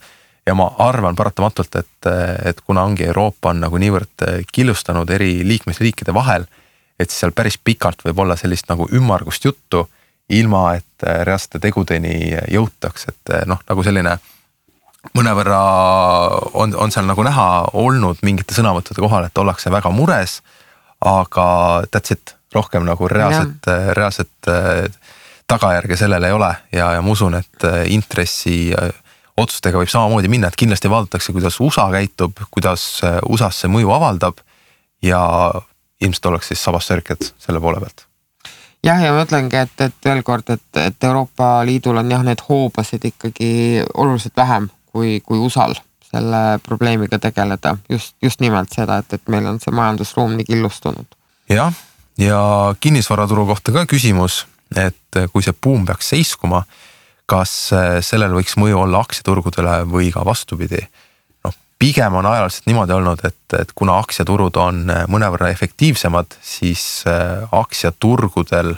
ja ma arvan paratamatult, et kuna ongi Euroopa on nagu niivõrd killustanud eri liikmesriikide vahel, et siis seal päris pikalt võib olla sellist nagu ümmargust juttu, ilma et reaalsete tegudeni jõutaks, et nagu selline mõnevõrra on seal nagu näha olnud mingite sõnavõttude kohal, et ollakse väga mures, aga that's it, rohkem nagu reaalset tagajärge sellele ei ole ja ma usun, et intressi otsustega võib samamoodi minna, et kindlasti vaadatakse, kuidas USA käitub, kuidas USA's see mõju avaldab ja ilmselt oleks siis sabassörked selle poole pealt. Jah, ja ma mõtlengi, et veel kord, et Euroopa Liidul on need hoobasid ikkagi oluliselt vähem kui USAl selle probleemiga tegeleda. Just nimelt seda, et meil on see majandusruum nii killustunud. Jah, ja kinnisvaraturu kohta ka küsimus, et kui see buum peaks seiskuma, kas sellel võiks mõju olla aktsiaturgudele või ka vastupidi? Pigem on ajaliselt niimoodi olnud, et kuna aktsiaturud on mõnevõrra efektiivsemad, siis aktsiaturgudel,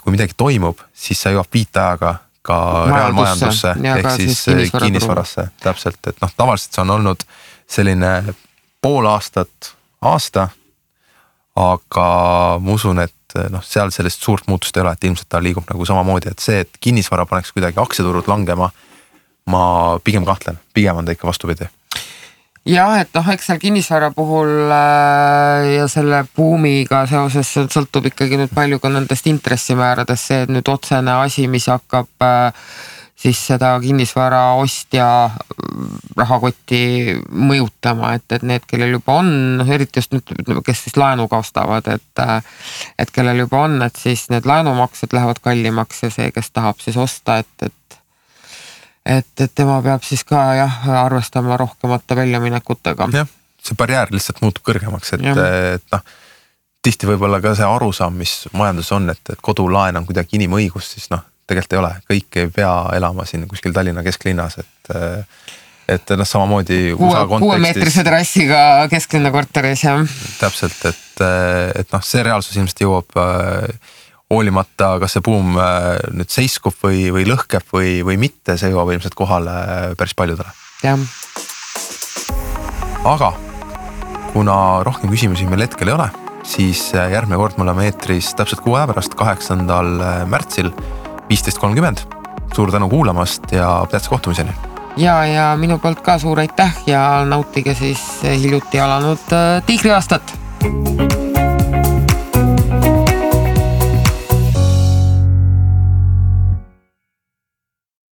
kui midagi toimub, siis sa jõuab viitajaga ka reaalmajandusse ehk siis kinnisvarasse. Täpselt, et tavaliselt see on olnud selline pool aastat, aasta, aga ma usun, et seal sellist suurt muutust ei ole, et ilmselt ta liigub nagu samamoodi, et see, et kinnisvara paneks kuidagi aktsiaturud langema, ma pigem kahtlen, pigem on ta ikka vastupidi. Jah, et eks seal kinnisvara puhul ja selle buumiga seoses sõltub ikkagi nüüd palju ka nendest intressimääradest see, et nüüd otsene asi, mis hakkab siis seda kinnisvara ostja rahakotti mõjutama, et need, kellel juba on, eriti just nüüd, kes siis laenuga ostavad, et kellel juba on, et siis need laenumaksed lähevad kallimaks ja see, kes tahab siis osta, et tema peab siis ka arvestama rohkemate väljaminekutega. Jah, see barjäär lihtsalt muutub kõrgemaks, et tihti võib-olla ka see arusaam, mis majandus on, et kodulaen on kuidagi inimõigus, siis tegelikult ei ole, kõik ei pea elama siin kuskil Tallinna kesklinnas, et samamoodi USA kontekstis. 6-meetrise terrassiga kesklinna korteris, jah. Täpselt, et see reaalsus ilmselt jõuab hoolimata, kas see buum nüüd seiskub või lõhkeb või mitte, see jõuab ilmselt kohale päris paljudele. Jah. Aga kuna rohkem küsimusi meil hetkel ei ole, siis järgmine kord me oleme eetris täpselt 6 aja pärast, 8. märtsil 15.30. Suur tänu kuulamast ja tähtsa kohtumiseni. Ja minu poolt ka suur aitäh ja nautige siis hiljuti alanud Tiigri aastat.